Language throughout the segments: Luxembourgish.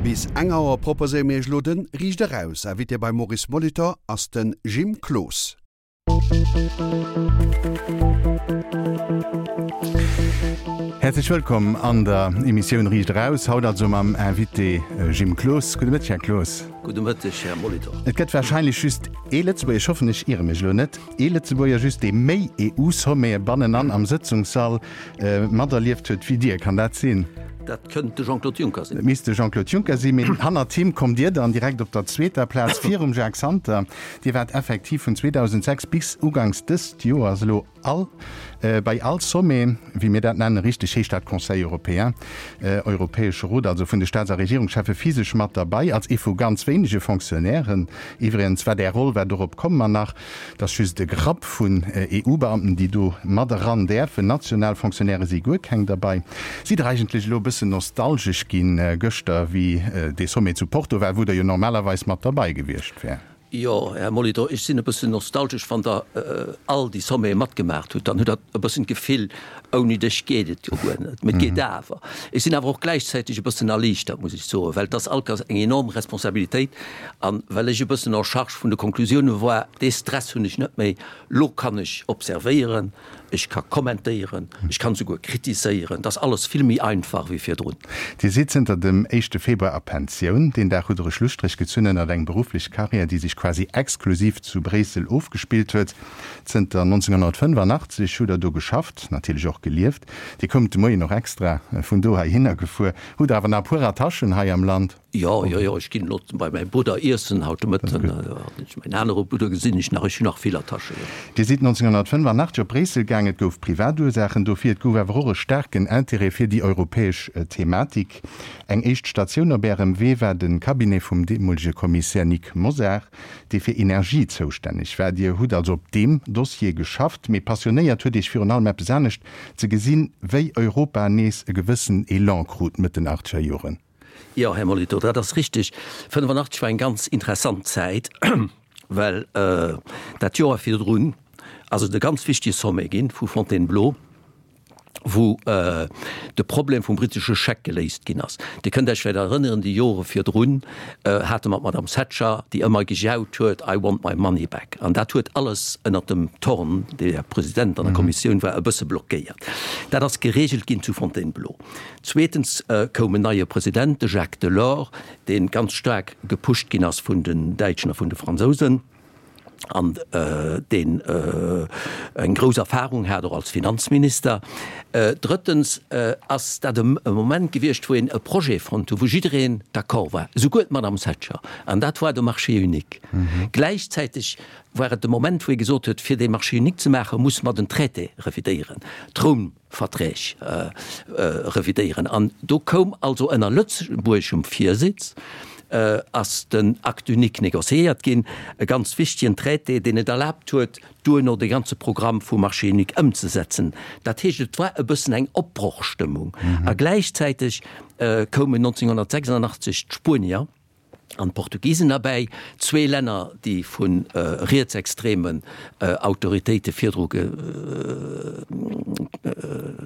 Bis eng Auer proposéiere mir iech elo de Riicht Eraus. Invité beim Maurice Molitor ass de Jim Cloos. Häerzlech wëllkomm an der Emissioun Riicht Eraus, haut also mam Invité Jim Cloos. Gudde Mëtteg, Här Cloos. Gudde Mëtteg, Här Molitor. Et gëtt warscheinlech just ee Lëtzebuerger, ech hoffen, ech iere mech elo net, ee Lëtzebuerger just, dee méi EU-Sommete bannenan am Sëtzungssall materlieft huet wéi Dir. Kann dat sinn? Dat kënnt de Jean-Claude Juncker sinn. Et misst de Jean-Claude Juncker sinn, mee hannert him kommt Dir dann direkt op der zweeter Plaz, virum Jacques Santer. Dir waart effektiv vun 2006 bis uganks dëst Joers elo all bei all Sommet, wéi mir dat nennen, richteg heescht dat Conseil européen, Europäesche Rot, also vun de Staats a Regierungscheffe physesch mat derbei, als ee vu ganz wéinege Fonctionnairen. Iwwregens war Är Roll war, dorop komme mer nach, Et ass just e Grapp vun EU-Beamten, déi do mat eran däerfen. National Fonctionnairë si guer keng derbei. Sidd Der eigentlech elo e bëssen nostalgesch ginn gëschter, wéi dee Sommet zu Porto war, wou Der jo normalerweis mat derbei gewiescht wäert? Jo, Här Molitor, ech sinn e bëssen nostalgesch. Wann Der all déi Sommete matgemaacht hutt, dann hutt Der e bëssen d'Gefill, ouni dech geet et jo guer net. Mee et geet awer. Ech sinn awer och gläichzäiteg e bëssen erliichtert, muss ech soen, well et ass all Kéiers eng enorm Responsabilitéit. An well ech e bëssen en charge vun de Konklusioune war, dee Stress hunn ech net méi. Lo kann ech observéieren, ech ka kommentéieren, ech kann souguer kritiséieren. Et ass alles vill méi einfach wéi virdrun. Dir sidd zënter dem éischte Februar a Pensioun. Deen Dag hutt Der e Schlusstréch gezunn ënnert eng berufflech Karriär, déi sech quasi exklusiv zu Bréissel ofgespillt huet. Zënter 1985 hutt Der do geschafft, natierlech och gelieft. Dir koumt de Moien och extra vun do heihinner gefuer. Hutt Der awer nach e puer Attachen hei am Land? Jo, jo, jo, ech ginn elo bei mäi Brudder iessen haut de Mëtten. Mäin anere Brudder gesinn ech nach. Ech hunn nach vill Attachen, jo. Dir sidd 1985 op Bréissel gaang. Et gouf privat Ursaachen dofir, et gouf awer och e staarken Intérêt fir déi europäesch Thematik. Eng éischt Statioun op Ärem Wee war de Cabinet vum deemolege Kommissär Nic Mosar, dee fir Energie zoustänneg war. Dir hutt also op deem Dossier geschafft, mee passionéiert huet Iech virun allem eppes anescht, ze gesinn, wéi Europa nees e gewëssen Elan krut Mëtt den achtzeger Joren. Jo, Här Molitor, dat ass richtig. 85 war eng ganz interessant Zäit, well dat Joer virdrun ass et e ganz wichtige Sommet ginn vu Fontainebleau, wou de Problem vum brittesche Scheck geléist ginn ass. Dir kënnt Iech vläicht erënneren, déi Jore virdrun hate mer d'Madame Thatcher, déi ëmmer gejaut huet, I want my money back. An dat huet alles ënnert dem Thorn, dee ja President an der Kommissioun war, e bësse blockéiert. Dat ass geregelt ginn zu Fontainebleau. Zweetens koum en neie President, de Jacques Delors, dee ganz staark gepusht ginn ass vun den Däitschen a vun de Fransousen an deen eng grouss Erfahrung hat, och als Finanzminister. Drëttens ass dat e Moment gewiescht, wou een e Projet fonnt huet, wou jiddereen d'accord war, esouguer d'Madame Thatcher, an dat war de Marché unique. Gläichzäiteg war et de Moment, wou ee gesot huet, fir dee Marché unique ze maachen, musse mer den Traité revidéieren, d'Roum. Verträg revidéieren. An do koum also ënner lëtzebuergeschem Virsitz ass den Acte unique négociéiert ginn, e ganz wichtigen Traité, deen et erlaabt huet, duerno de ganze Programm vum Marché unique ëmzesetzen. Dat heescht, et war e bëssen eng Opbrochstëmmung. A gläichzäiteg koumen 1986 d'Spuenier, an d'Portugisen erbäi, zwee Länner, déi vu rietsextremen Autoritéite virdru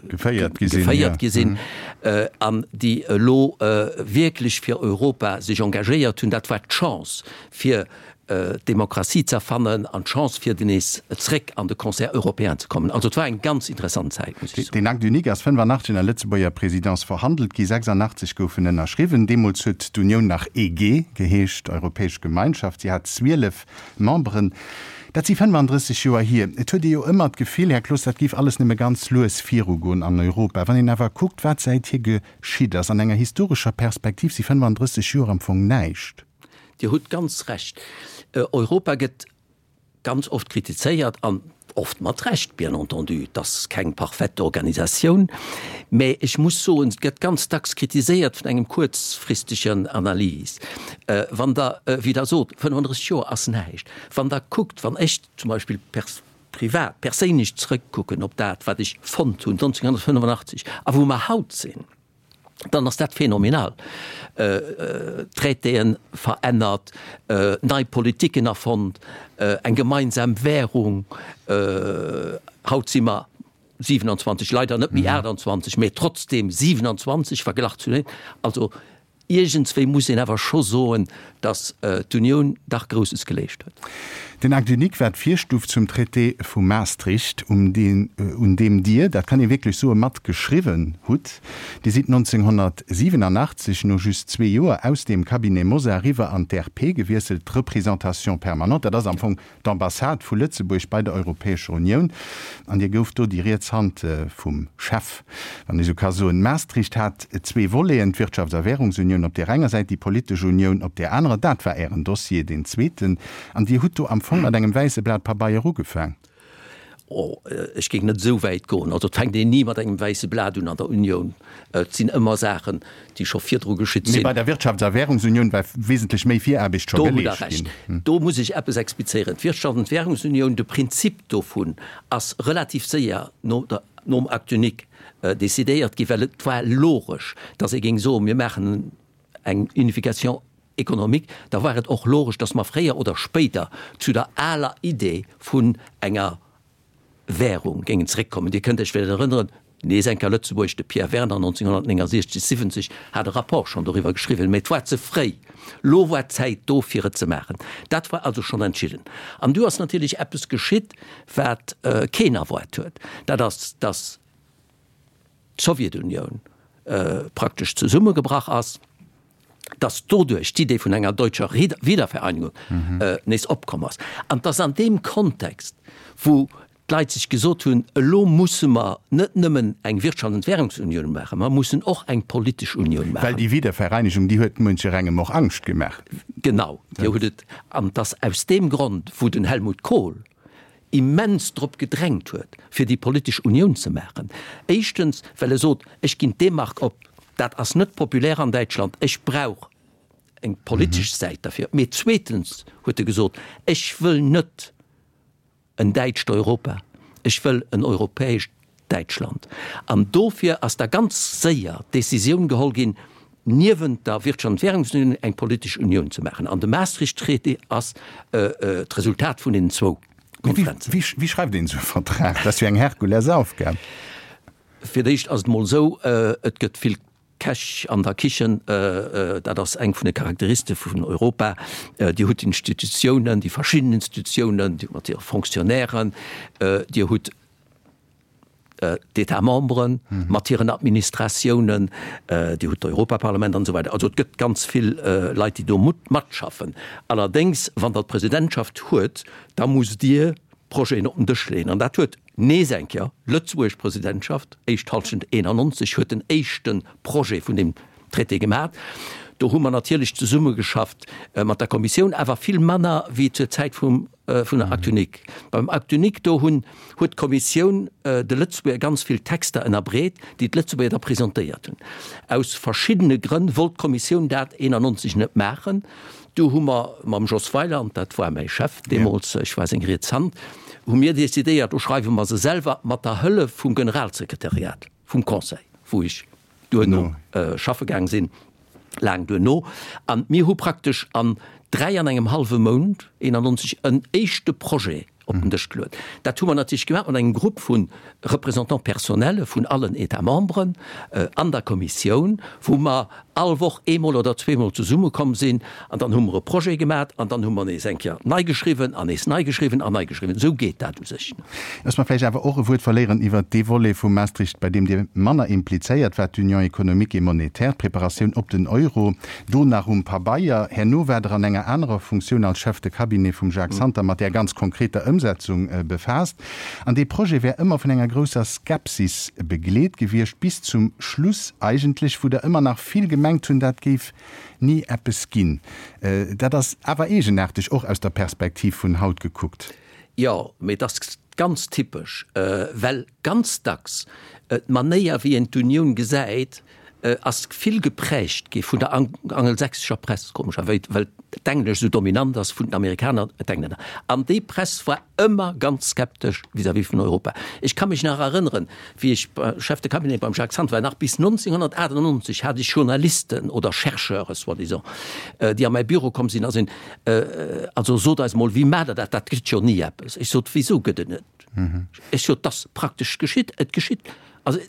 geféiert gi sinn an déi elo wierklech fir Europa sech engagéiert hunn. Dat war d'Chance fir d'Demokratie z'erfannen an d'Chance fir nees zréck an de Concert européen ze kommen. Also et war eng ganz interessant Zäit, muss ech soen. Deen Acte unique ass 85 ënner Lëtzebuerger Présidence verhandelt gi, 86 gouf en ënnerschriwwen. Deemools huet d'Unioun nach EG geheescht, Europäesch Gemeinschaft. Si hat 12 Memberen. Dat si 35 Joer hier. Et huet ee jo ëmmer d'Gefill, Här Cloos, dat géif alles nëmme ganz lues virugoen an Europa. Wann een awer kuckt, wat säithier geschitt ass, an enger historescher Perspektiv si 35 Joer am Fong näischt. Dir hutt ganz Recht. Europa gëtt ganz oft kritizéiert, an oft mat Recht, bien entendu, et ass keng parfaite Organisatioun, mä ech muss soen, et gëtt ganz dacks kritiséiert vun engem kuerzfristegen Analys. Wann Der, wéi Der sot, 35 Joer ass näischt, wann Der kuckt, wann ech zum Beispill privat, perséinlech zrëckkucken op dat, wat ech fonnt hunn 1985 a wou mer haut sinn, dann ass dat phänomenal. Traitéen verännert, nei Politiken erfonnt, eng gemeinsam Währung. Haut si mer 27, leider net méi 28, mä trotzdem 27 verglach zu den. Also. Iergendswéi muss een awer scho soen, datt d'Unioun dach Grousses geleescht huet. Den Acte unique war d'Virstuf zum Traité vu Maastricht, um deen, un deem Dir, dat kann ee wierklech soen, mat geschriwwen hutt. Dir sidd 1987, no just zwee Joer, aus deem Cabinet Mosar eriwwer an d'RP gewiesselt, d'Représentation permanente. Dat ass am Fong d'Ambassade vu Lëtzebuerg bei der Europäescher Unioun, an Dir gouft do déi riets Hand vum Chef, wann ee sou ka soen. Maastricht hat zwee Voleten, d'Wirtschafts a Währungsunioun op där enger Säit, déi politesch Unioun op där anerer. Dat war Ären Dossier, deen zweeten. An Dir hutt do am Fong mat engem wäisse Blat Pabeier ugefaang. Oh, ech géing net esou wäit goen. Also et fänkt een ni mat engem wäisse Blat un an der Unioun. Et sinn ëmmer Saachen, déi scho virdru geschitt sinn. Mee bei der Wirtschafts a Währungsunioun war wesentlech méi Viraarbecht scho Do hutt Der geleescht Recht. ginn. Do muss ech eppes explizéieren. D'Wirtschafts an d'Währungsunioun, de Prinzip dovun ass relativ séier no der, nom Acte unique decidéiert ginn, well et war logesch, datt ee géing soen, mir maachen eng Unification économique, da war et och logesch, datt mer fréier oder spéider zu der aler Idee vun enger Währung géingen zeréckkommen. Dir kënnt Iech vläicht erënneren, nees eng Kéier Lëtzebuerg, de Pierre Werner 1969, 70 hat e Rapport schonn doriwwer geschriwwen, mä et war ze fréi. Lo war d'Zäit do fir et ze maachen. Dat war also schonn entschidden. An du ass natierlech eppes geschitt, wat keen erwaart huet, dat ass, datt d'Sowjetunioun praktesch zesummegebrach ass, dass doduerch d'Idee vun enger deutscher Wiedervereinigung nees opkomm ass an dass an deem Kontext, wou d'Leit sech gesot hunn, elo musse mer net nëmmen eng Wirtschafts an Währungsunioun maachen, mer mussen och eng politesch Unioun maachen. Well déi Wiedervereinigung, déi huet muencherengem och Angscht gemaach. Genau, déi huet et. An dass aus deem Grond, wou den Helmut Kohl immens drop gedrängt huet, fir déi politesch Unioun ze maachen. Éischtens, well e sot, ech ginn d'D-Mark op, dat ass net populär an Däitschland, ech brauch eng politesch Säit derfir. Mee zweetens huet e gesot, ech wëll net en däitscht Europa, ech wëll en europäescht Däitschland. An dofir ass da ganz séier d'Decisioun geholl ginn, niewent der Wirtschafts an Währungsunioun eng politesch Unioun ze maachen. An de Maastricht-Traité ass d'Resultat vun deenen zwou Konferenzen. Wéi schreift een esou e Vertrag? Dat ass jo eng Herkulesaufgab. Fir d'éischt ass et emol esou, et gëtt vill Käch an der Kichen, dat ass eng vun de Charakteriste vun Europa. Dir hutt d'Institutiounen, déi verschidden Institutiounen mat hire Fonctionnairen. Dir hutt d'États membres mat hiren Administratiounen, Dir hutt d'Europaparlament an esou weider. Also et gëtt ganz vill Leit, déi do matschaffen. Allerdéngs, wann Der d'Presidentschaft huet, da musst Dir Projeten op den Dësch leeën. An dat huet nees eng Kéier d'lëtzebuergesch Presidentschaft, éischt Halschent 91, huet den éischte Projet vun deem Traité gemaat. Do hu mer natierlech zesummegeschafft mat der Kommissioun, awer vill manner wéi zur Zäit vum vun der Acte unique. Beim Acte unique do hunn huet d'Kommissioun de Lëtzebuerger ganz vill Texter ënnerbreet, déi d'Lëtzebuerger da presentéiert hunn. Aus verschiddene Grënn wollt d'Kommissioun dat 91 net maachen. Du hu mer mam Jos Weiland, dat war mäi Chef deemools, ech war seng riets Hand, hu mir decidéiert, do schreiwe mer se selwer mat der Hëllef vum Generalsekretariat vum Conseil, wou ech duerno schaffe gaang sinn, laang duerno. An mir hu praktesch an 3 an engem hallwe Mount 91 en éischte Projet op den Dësch geluet. Dat hu mer natierlech gemaach mat engem Grupp vu Représentants personnels vun allen États membres an der Kommissioun, wou mer all Woch eemol oder zweemol zesummekomm sinn an dann hu mer e Projet gemaach an dann hu mer nees eng Kéier nei geschriwwen an nees nei geschriwwen an nei geschriwwen. Esou geet dat u sech. Looss mer vläicht awer och e Wuert verléieren iwwert dee Volet vu Maastricht, bei deem Dir manner implizéiert waart, d'Union économique et monétaire, d'Preparatioun op den Euro, do nach um Pabeier. Herno waart Der an enger anerer Funktioun als Chef de cabinet vum Jacques Santer mat där ganz konkreter Ëmsetzung befaasst. An dee Projet wär ëmmer vun enger grousser Skepsis begleet gewiescht, bis zum Schluss eigentlech, wou der ëmmer nach vill gemengt hunn, dat géif ni eppes ginn. Dat ass awer eegenaarteg, och aus der Perspektiv vun haut gekuckt. Jo, mee et ass ganz typesch, well ganz dacks d'Manéier, wéi een d'Unioun gesäit, ass vill geprägt gi vun der angelsächsescher Press, komescherwéis, well d'Englesch esou dominant ass vun den Amerikaner, d'Englänner. An déi Press war ëmmer ganz skeptesch vis-à-vis vun Europa. Ech ka mech nach erënneren, wéi ech Chef de cabinet beim Jacques Santer war, nach bis 1998 hat ech Journalisten oder Chercheure soi-disant, déi a mäi Büro komm sinn a sinn, Also sot eis mol, wéi maacht Der dat? Dat gëtt jo ni eppes. Ech sot, Wisou gëtt et net? Ech sot, 't ass praktesch geschitt, et geschitt. Also,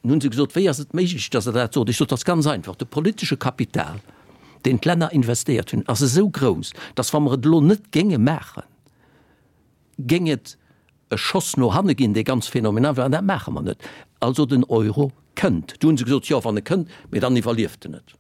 Nun hunn se gesot, Wéi ass et méiglech, datt Der dat sot? Ech sot, 't ass ganz einfach, de politesche Kapital. deen d'Länner investéiert hunn, ass esou grouss, dass, wa mer et elo net géinge maachen, géing et e Schoss no hanne ginn, dee ganz phänomenal wär, an dat maache mer net. Also den Euro kënnt. Du hu se gesot, jo, wann e kënnt, mee dann iwwerlieft en et.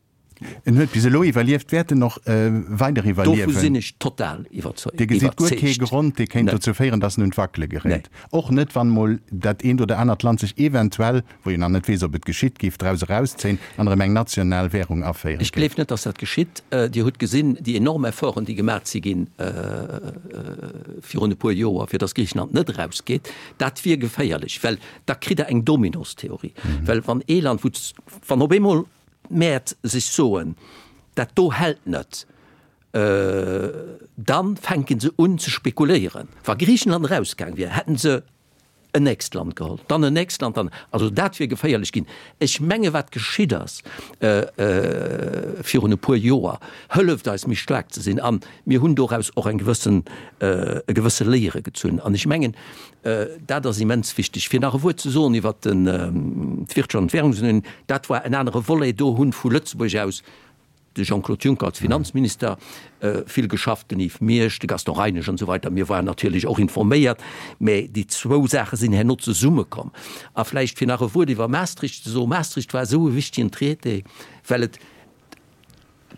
En huet bis elo iwwerlieft, wäert en och weider iwwerliewen? Dovu sinn ech total iwwerzeugt. Dir gesitt guer kee Grond, dee kéint dozou féieren, datt en un d'Wackele geréit? Och net, wann emol dat eent oder anert Land sech eventuell, wou een nach net weess, ob et geschitt, géif draus erauszéien an erëm eng national Währung aféiere Ech géif? gleef net, datt dat geschitt. Dir hutt gesinn, déi enorm Efforten, déi gemaach si ginn virun e puer Joer, fir datt Griichenland net erausgeet. Dat wier geféierlech, well da kritt Der eng Dominostheorie. Well wann ee Land, wou, wann op eemol d'Mäert sech soen, dat do hält net, da fänke se un ze spekuléieren. Wa Griichenland erausgaang wier, hätten se en nächst Land geholl, dann en nächst Land, dann, also dat wier geféierlech ginn. Ech menge wat geschitt ass virun e puer Joer, hëlleft eis méi staark ze sinn an mir hunn doraus och eng gewëssen, e gewësse Léiere gezunn. An ech mengen, Dat ass immens wichteg. Fir nach e Wuert ze soen iwwert d'Wirtschaft an d'Währungsunioun, dat war en anere Volet. Do hunn vu Lëtzebuerg aus de Jean-Claude Juncker als Finanzminister vill geschafft, den Yves Miersch, de Gaston Reinesch an esou weider. Mir waren natierlech och informéiert, mä déi zwou Saache sinn herno zesummekomm. A vläicht fir nach e Wuert iwwer Maastricht ze soen, Maastricht war esou e wichtigen Traité, well et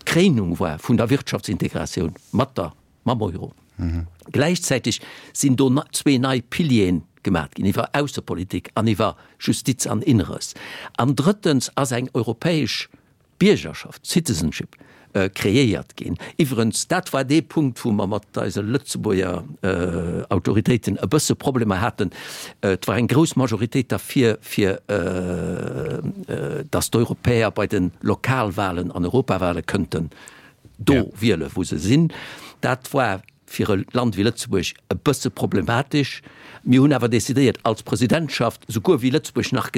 d'Kréinung war vun der Wirtschaftsintegratioun mat der mam Euro. Gläichzäiteg sinn do zwee nei Pilieren gemat ginn, iwwer Aussepolitik an iwwer Justiz an Inneres. An drëttens ass eng europäesch Biergerschaft, Citizenship, kreéiert ginn. Iwwerens, dat war dee Punkt, wou mer mat eise Lëtzebuerger Autoritéiten e bësse Problemer haten. Et war eng grouss Majoritéit derfir, fir datt d'Europäer bei de Lokalwahlen an Europawahlen kënnten do wiele wou se sinn. Dat war fir e Land wéi Lëtzebuerg e bësse problematesch. Mir hunn awer decidéiert als Presidentschaft, souguer wéi Lëtzebuerg nach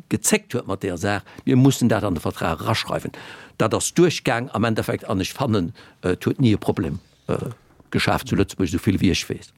gezéckt huet mat deeër Saach, mir mussen dat an de Vertrag eraschreiwen. Dat ass duerchgaang am Endeffekt an ech fannen, et huet ni e Problem geschaf zu Lëtzebuerg, esou vill wéi ech weess.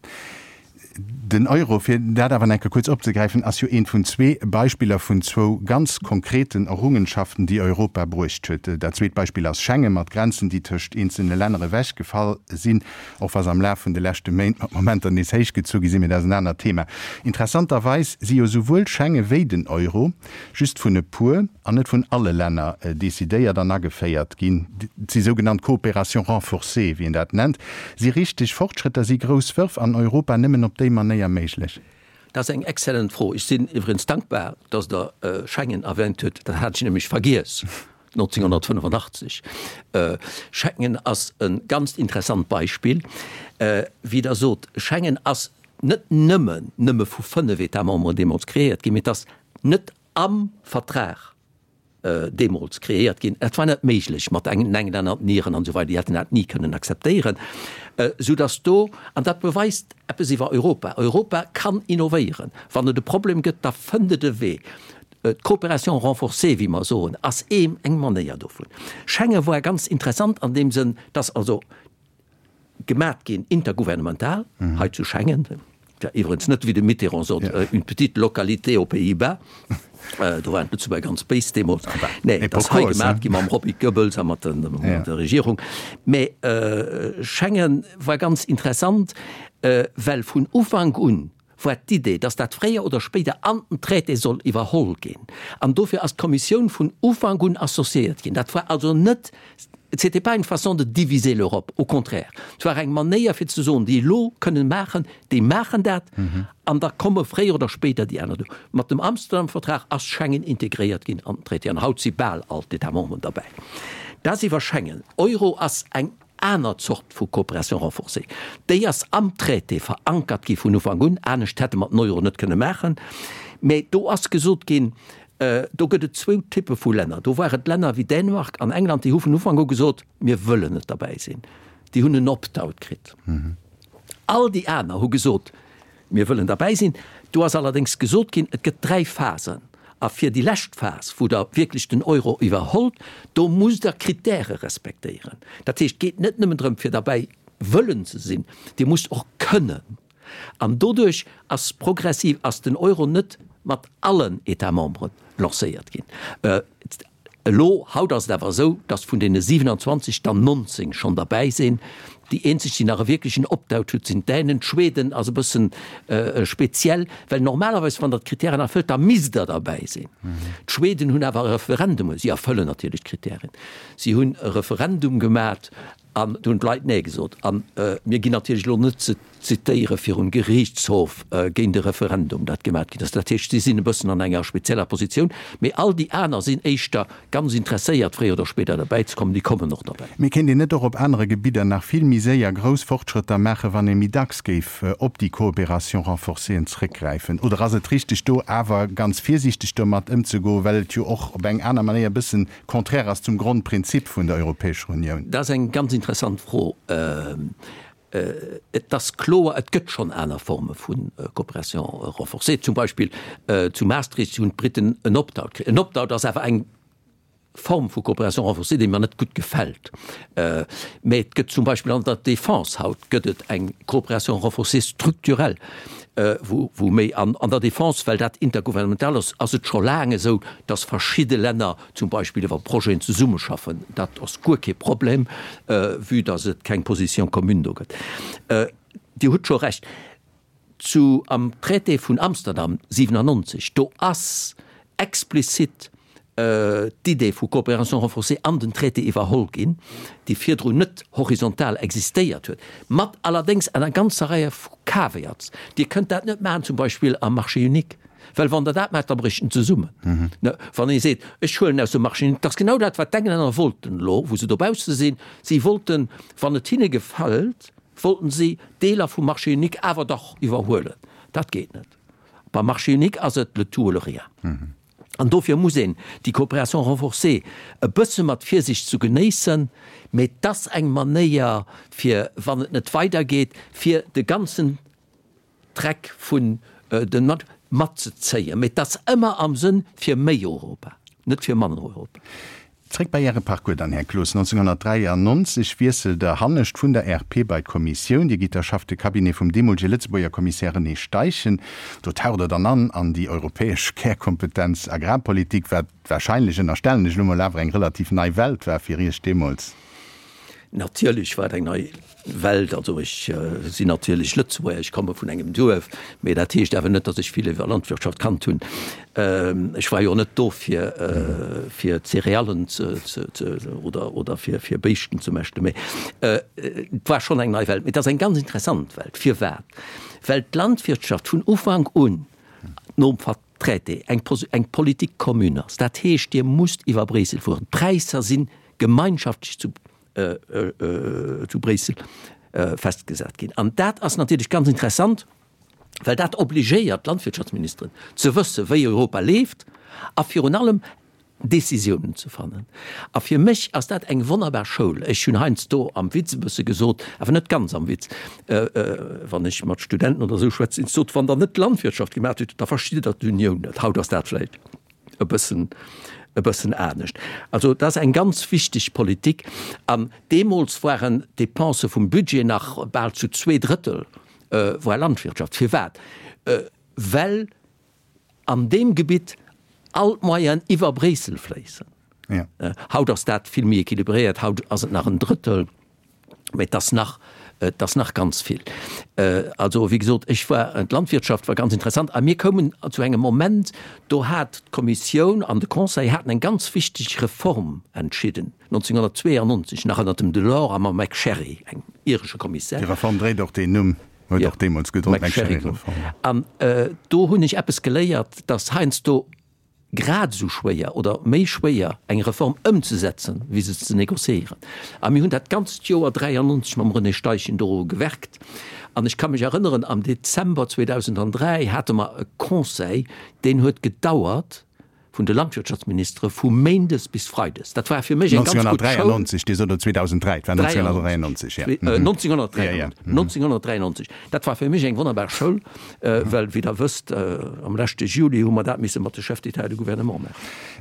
Den Euro, fir dat awer nach eng Kéier kuerz opzegräifen, ass jo eent vun zwee Beispiller vun zwou ganz konkreten Errungenschaften, déi Europa bruecht huet. Dat zweet Beispill ass Schengen, mat Grenzen, déi tëscht eenzelne Länner ewechgefall sinn, och wa se am Laf vun de leschte Méint mat Momenter nees héichgezu gi sinn, mee dat ass en anert Thema. Interessanterweis si jo souwuel Schengen wéi den Euro just vun e puer, an net vun alle Länner decidéiert an ageféiert ginn. Et si sougenannt Coopérations renforcées, wéi een dat nennt. Si richteg Fortschrëtter, si grouss Wërf an Europa nëmmen op déi Manéier méiglech? Dat ass eng exzellent Fro. Ech sinn iwwregens dankbar, dass Der Schengen erwähnt hutt. Dat hat ech nämlech vergiess, 1985. Schengen ass e ganzt interessant Beispill. Wéi Der sot, Schengen ass net nëmmen nëmme vu fënnef États membres deemools kreéiert ginn, mee et ass net am Vertrag deemools kreéiert ginn. Et war net méiglech mat engen Englänner, den Iren an esou weider, déi hätten dat ni kënnen akzeptéieren, soudass do, an dat beweist eppes iwwer Europa, Europa kann innovéieren. Wann et e Problem gëtt, da fënnt et e Wee. D'Coopération renforcée, wéi mer soen, ass eng Manéier dovun. Schengen war ganz interessant an deem Sënn, dass also Gemat ginn, intergouvernemental, hei zu Schengen, iwwerens net, wéi de Mitterrand sot, une petite localité aux Pays-Bas, do waren d'Lëtzebuerger ganz béis deemools, nee, et ass hei gemat gi mam Roby Goebbels a mat der Regierung. Mä Schengen war ganz interessant, well vun Ufank un war d'Idee, dass dat fréier oder spéider an den Traité soll iwwerholl ginn. An dofir ass d'Kommissioun vun Ufank un associéiert ginn. Dat war also net, c'était pas une façon de diviser l'Europe, au contraire, et war eng Manéier fir ze soen, déi elo kënnen maachen, déi maachen dat an da komme fréier oder spéider déi aner do. Mat dem Amsterdam-Vertrag ass Schengen integréiert ginn an den Traité an haut si bal all d'États membres derbäi. Dat ass iwwer Schengen. Euro ass eng aner Zort vu Coopération renforcée. Déi ass am Traité verankert gi vun Ufank un, anescht hätte mer den Euro net kënne maachen. Mä do ass gesot ginn, do gëtt et zwou Typpe vu Länner. Do ware et Länner wéi Dänemark an England, déi hu vun Ufank u gesot, mir wëllen net derbäi sinn. Déi hunn en Opt-out kritt. All déi aner hu gesot, Mir wëllen derbäi sinn. Do ass allerdéngs gesot ginn, et gëtt dräi Phasen. A fir déi lescht Phas, wou Der wierklech den Euro iwwerhollt, do musst Der Kritäre respektéieren. Dat heescht, et geet net nëmmen drëm, fir derbäi wëllen ze sinn, Dir musst och kënnen. An doduerch ass progressiv ass den Euro net mat allen États membres lancéiert ginn. Elo, haut ass et awer esou, datt vun deene 27 der 19 schonn derbäi sinn. Déi eenzeg, déi nach e wierklechen Opt-out hutt, sinn d'Dänen. D'Schweden ass e bëssen speziell, well normalerweis, wann Der d'Kritären erfëllt, da misst Der derbäi sinn. D'Schweden hunn awer e Referendum, si erfëllen natierlech d'Kritären, si hunn e Referendum gemat An do hunn d'Leit Nee gesot. A mir ginn natierlech elo net ze zitéiere virum Geriichtshof géint e Referendum, dat gemat ginn ass. Dat heescht, si sinn e bëssen an enger spezieller Positioun. Mee all déi aner sinn éischter ganz interesséiert, fréier oder spéider derbäi ze kommen. Déi kommen och derbäi. Mee kéint een net och op anere Gebidder nach vill méi séier grouss Fortschrëtter maachen, wann ee méi dacks géif op déi Coopération renforcée zréckgräifen? Oder ass et richteg, do awer ganz virsiichteg domat ëmzegoen, well et jo och op eng aner Manéier e bëssen Contraire ass zum Grondprinzip vun der Europäescher Unioun? Dat ass eng ganz interessant Fro. Et ass kloer, et gëtt schonn aner Forme vu Coopération renforcée. Zum Beispill zu Maastricht hunn d'Briten en Opt-out kritt. En Opt-out ass awer eng Form vu Coopération renforcée, déi mer net gutt gefält. Mä et gëtt zum Beispill an der Défense haut gëtt et eng Coopération renforcée structurelle, wou méi an der Défense, well dat intergouvernemental ass, ass et scho laang esou, dass verschidde Länner zum Beispill iwwer Projeten zesummeschaffen. Dat ass guer kee Problem, vue dass et keng Position commune do gëtt. Dir hutt scho Recht, zu am Traité vun Amsterdam 97, do ass explizit d'Idee vu Coopération renforcée an den Traité iwwerholl ginn, déi virdrun net horizontal existéiert huet, mat allerdéngs enger ganzer Reihe vu Caveats. Dir kënnt dat net maachen zum Beispill am Marché unique, well wann Der dat maacht, da brécht en zesummen. Wann ee seet, ech huelen aus dem Marché unique, dat ass genau dat, wat d'Englänner wollten elo, wou se dobausse sinn. Si wollten, wann et hinne gefält, wollten si Deeler vum Marché unique awer dach iwwerhuelen. Dat geet net. Beim Marché unique ass et le tout ou le rien. An dofir muss een déi Coopération renforcée e bësse mat Virsicht zu genéissen, mee et ass eng Manéier fir, wann et net weidergeet, fir de ganzen Dreck vun den matzezéien. Mee et ass ëmmer am Sënn fir méi Europa, net fir manner Europa. Zréck bei Äre Parcours dann, Här Cloos. 1993 wiesselt Der hannescht vun der RP bei d'Kommissioun. Dir gitt da Chef de Cabinet vum deemolege Lëtzebuerger Kommissär René Steichen. Do taucht Der dann an an déi europäesch Kärkompetenz Agrarpolitik, wat wahrscheinlech, ënnerstellen ech elo mol, awer eng relativ nei Welt war fir Iech deemools. Natierlech war et eng nei Welt. Also ech sinn natierlech Lëtzebuerger, ech komme vun engem Duerf, mee dat heescht awer net, datt ech vill iwwer Landwirtschaft kannt hunn. Ech war jo net do fir fir Céréallen ze ze oder oder fir fir Béischten ze mäschten, mee et war schonn eng nei Welt. Mee et ass eng ganz interessant Welt. Firwat? Well d'Landwirtschaft vun Ufank un nom Traité eng eng Politique commune ass. Dat heescht, Dir musst iwwer Bréissel fueren. D'Präisser si gemeinschaftlech zu zu Bréissel festgesat ginn. An dat ass natierlech ganz interessant, well dat obligéiert d'Landwirtschaftsministeren ze wëssen, wéi Europa leeft a virun allem Décisiounen ze fannen. A fir mech ass dat eng wonnerbar Schoul. Ech hunn heiansdo am Witz e bësse gesot, awer net ganz am Witz, wann ech mat Studenten oder esou schwätzen, ech sot, wann Der net Landwirtschaft gemaach hutt, da verstitt Der d'Unioun net. Haut ass dat vläicht e bëssen, e bëssen anescht. Also dat ass eng ganz wichteg Politik. An deemools waren d'Dépensë vum Budget nach bal zu 2/3 war Landwirtschaft. Firwat? Well an deem Gebitt all d'Moyenen iwwer Bréissel fléissen. Haut ass dat vill méi équilibréiert, haut ass et nach en Drëttel. Mä et ass nach, et ass nach ganz vill. Also, wéi gesot, ech war, d'Landwirtschaft war ganz interessant a mir koumen zu engem Moment, do hat d'Kommissioun an de Conseil haten eng ganz wichteg Reform entschidden, 1992, nach ënnert dem Delors a mam MacSharry, engem iresche Kommissär. Déi Reform dréit och deen Numm, huet och deemools gedroen, d'MacSharry-Reform. An do hunn ech eppes geléiert, dass heiansdo grad esou schwéier oder méi schwéier eng Reform ëmzesetzen, wéi se ze négociéieren. A mir hunn dat ganzt Joer 93 mam René Steichen doru gewerkt. An ech ka mech erënneren, am Dezember 2003 hate mer e Conseil, deen huet gedauert, vun de Landwirtschaftsministere vu méindes bis freides. Dat war fir mech eng ganz gutt Schoul. 1993, Dir sot elo 2003, et war 1993, jo. 1993, 1993. Dat war fir mech eng wonnerbar Schoul, well, wéi Der wësst, am leschte Juli hu mer dat misse mat de Chefs d'État et de Gouvernement maachen.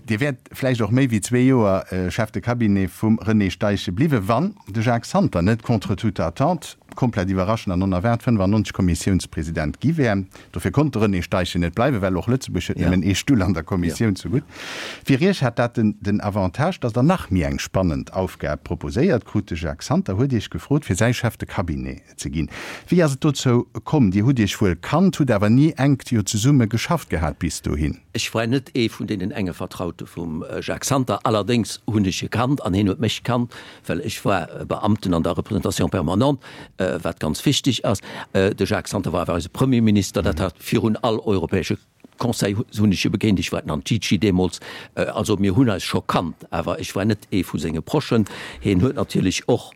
Dir wäert vläicht och méi wéi zwee Joer Chef de Cabinet vum René Steichen bliwwen, wann de Jacques Santer net contre toute attente. komplett iwwerraschend an onerwaart 95 Kommissiounspresident gi wär. Dofir konnt de René Steichen net bleiwen, well och Lëtzebuerg huet nëmmen ee Stull an der Kommissioun zegutt. Fir Iech hat dat den Avantage, datt Der nach méi eng spannend Aufgab proposéiert krut. De Jacques Santer huet Iech gefrot, fir säi Chef de Cabinet ze ginn. Wéi ass et dozou komm? Dir hutt Iech wuel kannt, hutt awer ni enk jo zesumme geschafft gehat bis dohin. Ech war net ee vun deenen enge Vertraute vum Jacques Santer. Allerdéngs hunn ech e kannt an hien huet mech kannt, well ech war Beamten an der Représentation permanente, wat ganz wichteg ass. De Jacques Santer war awer eise Premierminister, dat hat virun all europäesche Conseil hunn ech e begéint, ech war den Antici deemools, also mir hunn eis scho kannt, awer ech war net ee vu senge Prochen. Hien huet natierlech och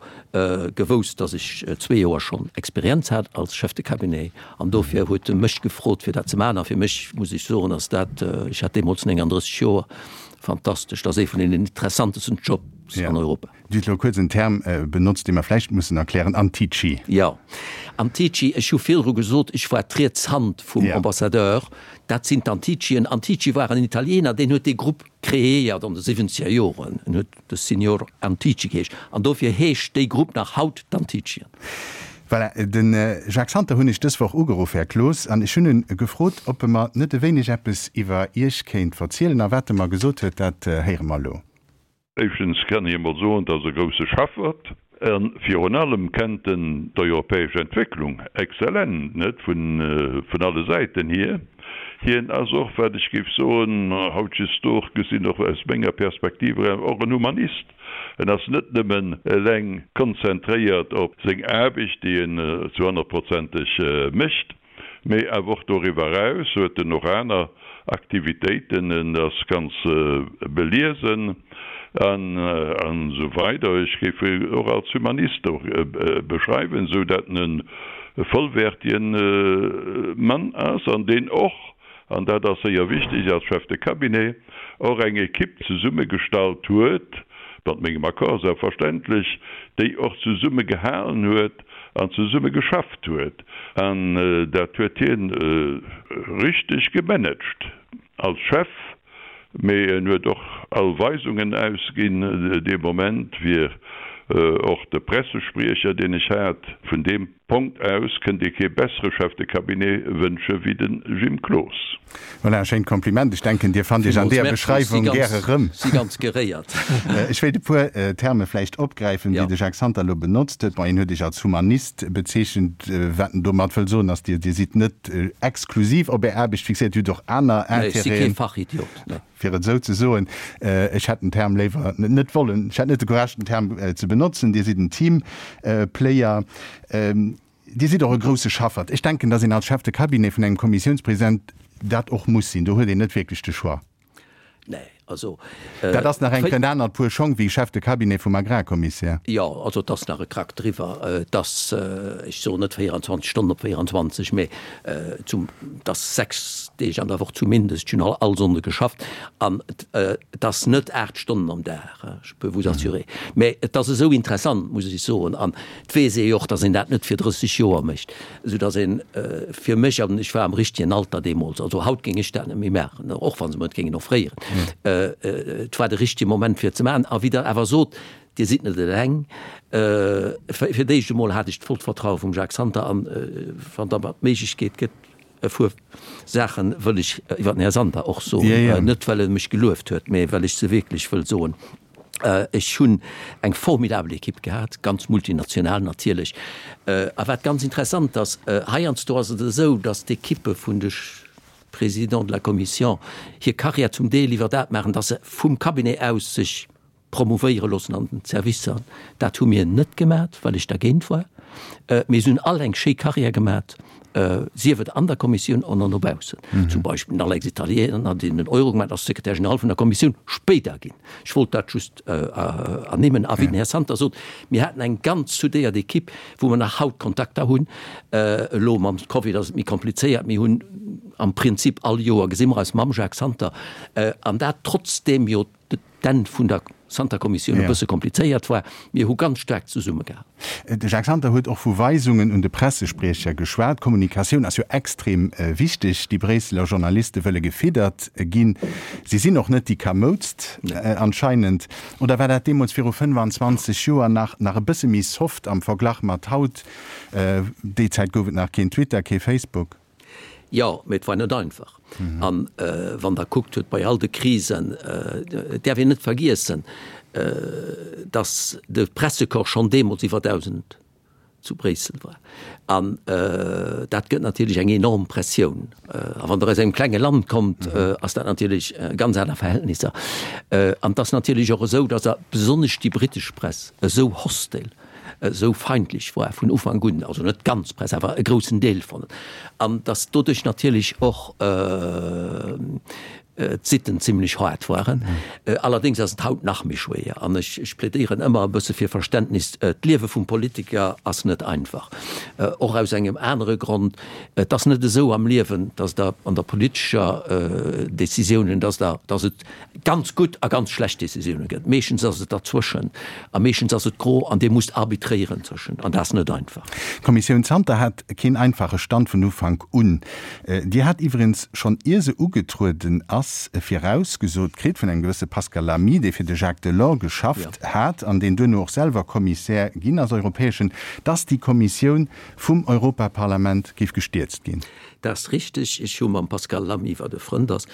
gewousst, datt ech zwee Joer schonn Experienz hat als Chef de cabinet an dofir huet e mech gefrot fir dat ze maachen. A fir mech, muss ech soen, ass dat, ech hat deemools 39 Joer, fantastesch, dat ass ee vun den interessantesten Jobs an Europa. Dir hutt elo kuerz en Term benotzt, dee mer vläicht mussen erklären, Antici. Jo, Antici. Ech hu virdru gesot, ech war d'riets Hand vum Ambassadeur. Dat sinn d'Anticien. Antici war en Italiener, deen huet dee Grupp kreéiert an de siwwenzeger Joren. En huet de Signor Antici geheescht. An dofir heescht déi Grupp nach haut d'Anticien. Voilà, de Jacques Santer hunn ech dës Woch ugeruff, Här Cloos, an ech hunn e gefrot, ob e mer net e wéineg eppes iwwer Iech kéint verzielen. A wat e mer gesot huet, dat héiere mer elo. Éischtens kann ech emol soen, et ass e grousse Schaffert. A virun allem kennt en d'europäesch Entwécklung exzellent, net vun alle Säiten hier. Hien ass och, wat ech géif soen, hautjesdooch gesinn, och aus menger Perspektiv eraus, och en Humanist. En ass net nëmmen eleng konzentréiert op seng Aarbecht, déi en zu honnertprozenteg mécht, Mee awer och doriwwer eraus huet en och aner Aktivitéiten, en ass ganz beliesen an esou weider. Ech géif en och als Humanist och beschreiwen, esou dat en e vollwäertigen Mann ass an deen och, an dat ass séier wichteg als Chef de Cabinet, och eng Equipe zesummegestallt huet, mat mengem Accord selbstverständlech, déi och zesumme gehalen huet an zesumme geschafft huet. An dat huet hien richteg gemanagt als Chef, mee en huet och all Weisungen ausginn. Dee Moment wier och de Pressespriecher, deen ech hat, vun deem. Punkt aus kënnt ee kee bessere Chef de Cabinet wënsche wéi de Jim Cloos. Voilà, e schéint Kompliment. Ech denken, Dir fannt Iech an deeër Beschreiwung gär erëm. Si ganz geréiert. Ech wéilt e puer Terme vläicht opgräifen, déi de Jacques Santer elo benotzt huet. Bon, hien huet Iech als Humanist bezeechent. Wat en domat wëll soen, ass, Dir sidd net exklusiv op Är Aarbecht fixéiert, Dir hutt och aner Intérêten. Nee, ech si kee Fachidiot, nee. Fir et esou ze soen, ech hätt den Term léiwer net wollen, ech hätt net de Courage den Term ze benotzen, Dir sidd en Teamplayer, Dir sidd och e grousse Schaffert. Ech denken, datt een als Chef de cabinet vun engem Kommissiounspresident dat och muss sinn. Do huet een net wierklech de Choix. Nee, also. Dat ass nach eng en anert Puer Schong wéi Chef de cabinet vum Agrarkommissär. Jo, also et ass nach e Krack driwwer. Et ass, ech soen net 24 Stonnen op 24, mä zum, et ass 6 Deeg an der Woch zumindest, ech hunn all all Sonnde geschafft an et ass net 8 Stonnen am Dag, je peux vous assurer. Mä et ass esou interessant, muss ech soen, an et weess ee jo och, datt een dat net fir 30 Joer mécht, esou datt een fir mech, an ech war am richtegen Alter deemools, also haut géing ech dat net méi maachen, och wa se mer et géingen offréieren, et war de richtege Moment fir et ze maachen. A wéi Der awer sot, Dir sidd net eleng. Fir d'éischt emol hat ech d'vollt Vertraue vum Jacques Santer an wann da mer d'Méiglechkeet gëtt, e puer Saache wëll ech iwwer den Här Santer och soen, net well e mech gelueft huet, mä well ech se wierklech wëll soen. Ech hunn eng formidabel Ekipp gehat, ganz multinational natierlech. A wat ganz interessant ass, heiansdo ass et esou, datt d'Ekippe vun de Présidents de la Commission hir Carrière zum Deel iwwer dat maachen, datt se vum Cabinet aus sech promouvéiere loossen an den Servicer. Dat hu mir net gemat, well ech dergéint war. Mir hunn all eng schéi Carrière gemat, sief et an der Kommissioun oder no baussen. Zum Beispill den Alex Italiener, deen den Euro gemat ass, Secrétaire général vun der Kommissioun spéider ginn. Ech wollt dat just ernimmen. A wéi den Här Santer sot, mir haten eng ganz soudéiert Equipe, wou mer nach haut Kontakter hunn. Elo mam Covid ass et méi komplizéiert. Mir hunn am Prinzip all Joer gesi mer eis mam Jacques Santer, an dat trotzdeem jo, D'Enn vun der. Santer-Kommissioun e bësse komplizéiert war. Mir hu ganz staark zesummegehalen. De Jacques Santer huet och vu Weisungen un de Pressespriecher geschwat. Kommunikatioun ass jo extrem wichteg. Déi Bréisseler Journaliste wëlle gefiddert ginn. Si sinn och net déi kamoudst anscheinend. Oder war dat deemools viru 25 Joer nach nach e bësse méi soft am Verglach mat haut? Déi Zäit gouf et nach keen Twitter, kee Facebook. Jo, mee et war net einfach. An wann Der kuckt hutt bei all de Krisen, et däerf een net vergiessen, datt de Pressecorps schonn deemools iwwer 1.000 zu Bréissel war. An dat gëtt natierlech eng enorm Pressioun. A wann Der aus engem klenge Land kommt, ass dat natierlech ganz aner Verhältnisser. An et ass natierlech och esou, datt besonnesch déi brittesch Press esou hostil esou feindlech war vun Ufank un, also net d'ganz Press, awer e groussen Deel von, an datt doduerch natierlech och d'Sitten zimlech haart waren. Allerdéngs ass et haut nach méi schwéier, an ech, ech plädéieren ëmmer e bësse fir Verständnis. D'Liewe vum Politiker ass net einfach, och aus engem anere Grond, Et ass net esou am Liewen, datt Der an der politescher Décisiounen, datt Der, datt et ganz gutt a ganz schlecht Décisioune gëtt. Meeschtens ass et derzwëschen a meeschtens ass et gro an Dir musst arbitréieren zwëschen an dat ass net einfach. D'Kommissioun Santer hat keen einfache Stand vun Ufank un. Déi hat iwwregens schonn ier se ugetrueden ass virausgesot kritt vun engem gewësse Pascal Lamy, dee fir de Jacques Delors geschafft hat an deen duerno och selwer Kommissär ginn ass, europäeschen, dass déi Kommissioun vum Europaparlament géif gestierzt ginn. Dat ass richteg. Ech hu mam Pascal Lamy, wat e Frënd ass,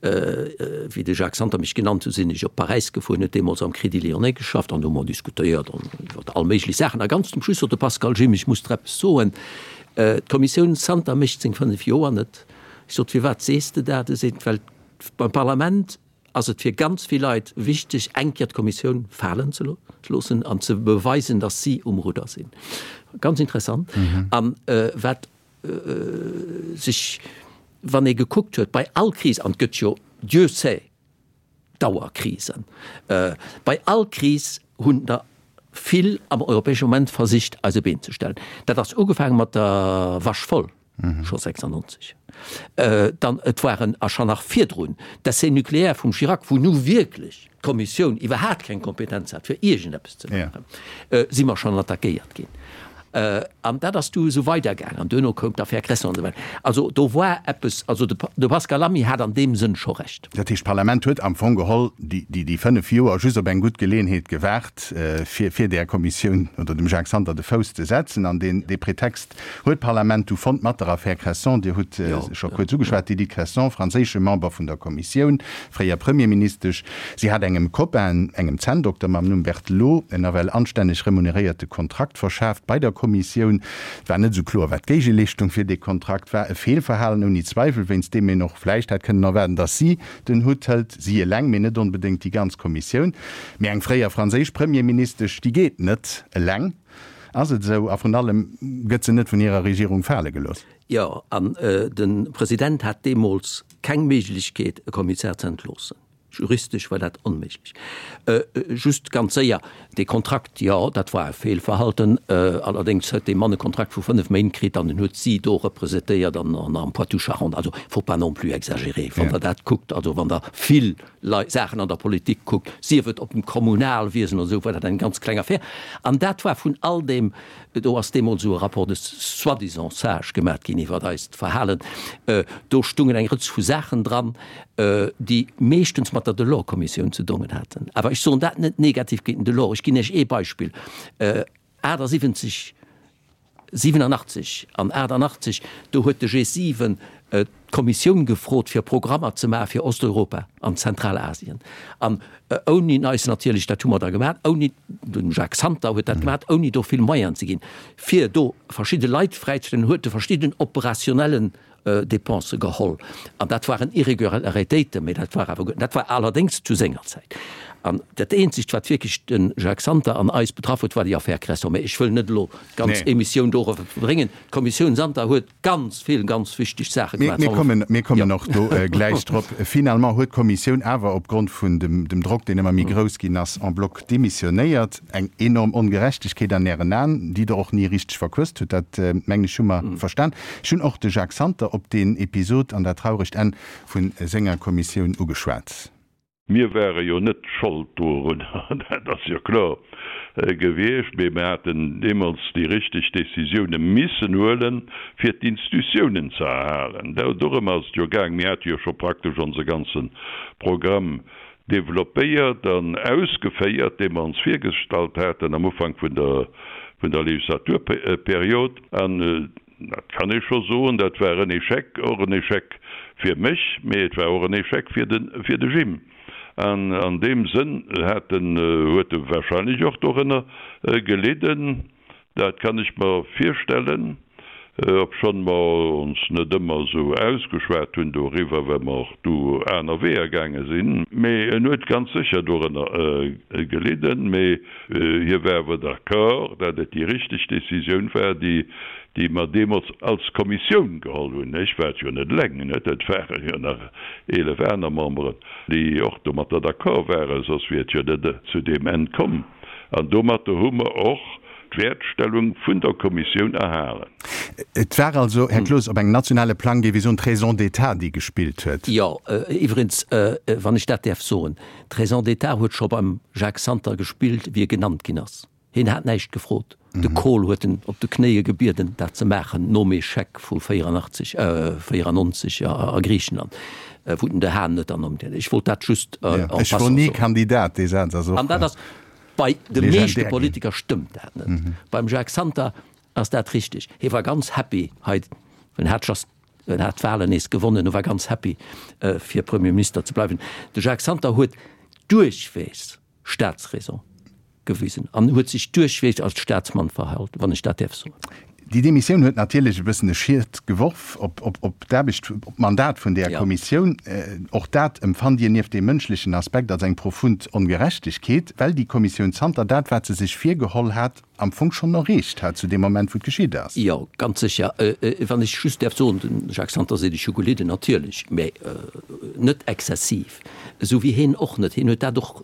wéi de Jacques Santer mech genannt huet, sinn ech op Paräis gefuer, en huet deemools am Crédit Lyonnais geschafft, an do hu mer diskutéiert an iwwer all méiglech Saachen. A ganz zum Schluss sot de Pascal, Jim, ech muss der eppes soen, d'Kommissioun Santer mécht seng 5 Joer net. Ech sot, Firwat sees de dat? E seet, Well beim Parlament ass et fir ganz vill Leit wichteg, eng Kéier d'Kommissioun falen ze loossen an ze beweisen, datt si um Rudder sinn. Ganz interessant. An wat sech, wann ee gekuckt huet, bei all Kris, an et gëtt jo, Dieu sait, Dauerkrisen, bei all Kris hunn der vill am Europäesche Moment versicht, eis e Been ze stellen. Dat ass ugefaange mat der Vache folle. scho 96, dann et waren a scho nach virdrun d'Essais nucléaires vum Chirac, wou nu wierklech d'Kommissioun iwwerhaat keng Kompetenz hat fir iergendeppes ze maachen, si mer schonn attackéiert ginn. An dat ass du esou weidergaangen an duerno koum d'Affaire Cresson an esou weider. Also do war eppes, also de Pascal Lamy hat an deem Sënn scho Recht. Dat heescht, d'Parlament huet am Fong geholl déi 5 Joer just op eng gutt Geleeënheet gewaart, fir där Kommissioun oder dem Jacques Santer de Fouss ze setzen an dee Pretext Huet d'Parlament du fonnt mat der Affär Cresson, Dir hutt se scho kuerz ugeschwat, d'Edith Cresson, franséische Member vun der Kommissioun, fréier Premierministesch, si hat engem Copain, engem Zänndokter mam Numm Berthelot, en nawell anstänneg remuneréierte Kontrakt verschaaft bei der Kommissioun. Et war net esou kloer, wat d'Géigeleeschtung fir dee Kontrakt war. E Feelverhalen ouni Zweiwel, wéinst deem een och vläicht hätt kënnen erwaarden, datt si den Hutt hëlt, si eleng, mee net onbedéngt déi ganz Kommissioun. Mee eng fréier franséisch Premierministesch, déi geet net eleng. Ass et esou? A vrun allem, gëtt se net vun hirer Regierung fale gelooss? Jo, an de President hat deemools keng Méiglechkeet, e Kommissär ze entloossen. Juristesch war dat onméiglech. Just ganz séier, dee Kontrakt, jo, dat war e Feelverhalten. Allerdéngs huet dee Mann e Kontrakt vu 5 Méint kritt an en huet si do representéiert an am Poitou-Charentes. Also, faut pas non plus exagérer, wann Der dat kuckt. Also, wann Der vill Leit, Saachen an der Politik kuckt, sief et op dem Kommunalwiesen oder esou, war dat eng ganz kleng Affär. An dat war vun all deem, do ass deemools esou e Rapport de soi-disant sages gemat ginn iwwert eist Verhalen, do stungen eng Rëtsch vu Saachen dran, déi meeschtens mat der Delors-Kommissioun ze dongen haten. Awer ech soen dat net negativ géint den Delors. Ech ginn Iech ee Beispill, 78, 87 an 88, do huet de G7 d'Kommissioun gefrot, fir Programmer ze maache fir Osteuropa an Zentralasien. An ouni eis natierlech, dat hu mer da gemaach, ouni, de Jacques Santer huet dat gemaach, ouni do vill Moyenen ze ginn, fir do verschidde Leit fräizestellen, huet e verschidden operationellen Dépensë geholl. An dat waren Irregularitéiten, mä dat war awer guer, dat war allerdéngs zu senger Zäit. An dat eenzegt, wat wierklech de Jacques Santer an eis betraff huet, war déi Affär Cresson. Mä ech wëll net elo d'ganz Émissioun dorower verbréngen. D'Kommissioun Santer huet ganz vill ganz wichteg Saache gemaach. Mir kommen, mir kommen och do gläich drop. Finalement huet d'Kommissioun awer opgrond vun dem, dem Drock, deen ëmmer méi grouss ginn ass, en bloc demissionéiert. Eng enorm Ongerechtegkeet an Ären Aen, déi Der och ni richteg verquësst hutt, dat mengen ech hu mer verstan. Ech hunn och de Jacques Santer op deen Episod an dat trauregt Enn vu senger Kommissioun ugeschwat. Mir ware jo net Schold dorun, dat ass jo kloer gewiescht, mee mir haten deemools déi richteg Décisioune missen huelen, fir d'Institutiounen ze erhalen. Dorëm ass et jo gaang. Mir hate jo scho praktesch onse ganze Programm développéiert an ausgeféiert, dee mer ons virgestallt haten am Ufank vun der Legislaturperiod. An Dat kann ee scho soen, dat war en Échec, och en Échec fir mech, mee et war och en Échec fir de, fir de Jim. An an deem Sënn hat en, huet e wahrscheinlech och dorënner gelidden, dat kann ech mer virstellen, obschonn mer ons net ëmmer esou ausgeschwat hunn doriwwer, well mer och du aner Weeër gaange sinn. Mee en huet ganz sécher dorënner gelidden. Mee Hie war awer d'accord, dat et déi richteg Décisioun war, déi, déi mer deemools als Kommissioun geholl hunn. Ech war et jo net eleng, net, et ware jo nach 11 aner Memberen, déi och domatter d'accord waren, soss wier et jo net zu deem Enn komm. An domatter hu mer och d'Wäertstellung vun der Kommissioun erhalen. Et war also, Här Cloos, op engem nationale Plang, géif ee soen, d'Raison d'état, déi gespillt huet. Jo, iwwregens, wann ech dat däerf soen, D'Raison d'état huet scho beim Jacques Santer gespillt, wéi e genannt ginn ass. Hien hat näischt gefrot. De Kohl huet en op de Knéie gebieden, dat ze maachen, nom Echec vu 84, 94 a Griichenland, wou den De Haan net ernimmt huet. Ech wollt dat just en passant soen. Ech wor ni Kandidat, dee Saz ass och legendär ginn. An dat ass, bei de meeschte Politiker stëmmt dat net. Beim Jacques Santer ass dat richteg. Hie war ganz happy hei, en hat just En hat d'Wahlen nees gewonnen a war ganz happy, fir Premier Minister ze bleiwen. De Jacques Santer huet duerchweegs Staatsräson gewisen an huet sech duerchweegs als Staatsmann verhalt, wann ech dat däerf soen. Déi Demissioun huet natierlech e bëssen e Schiet geworf op d'Aarbecht, op d'Mandat vun där Kommissioun. Och dat empfannt Dir nieft deem mënschlechen Aspekt als eng profund Ongerechtegkeet, well déi Kommissioun zanter dat, wat se sech virgeholl hat, am Fong schonn erreecht hat zu deem Moment, wou et geschitt ass. Jo, ganz sécher. Wann ech just däerf soen, de Jacques Santer seet, ech hu gelidden, natierlech, mä net exzessiv, esou wéi hien och net. Hien huet dat och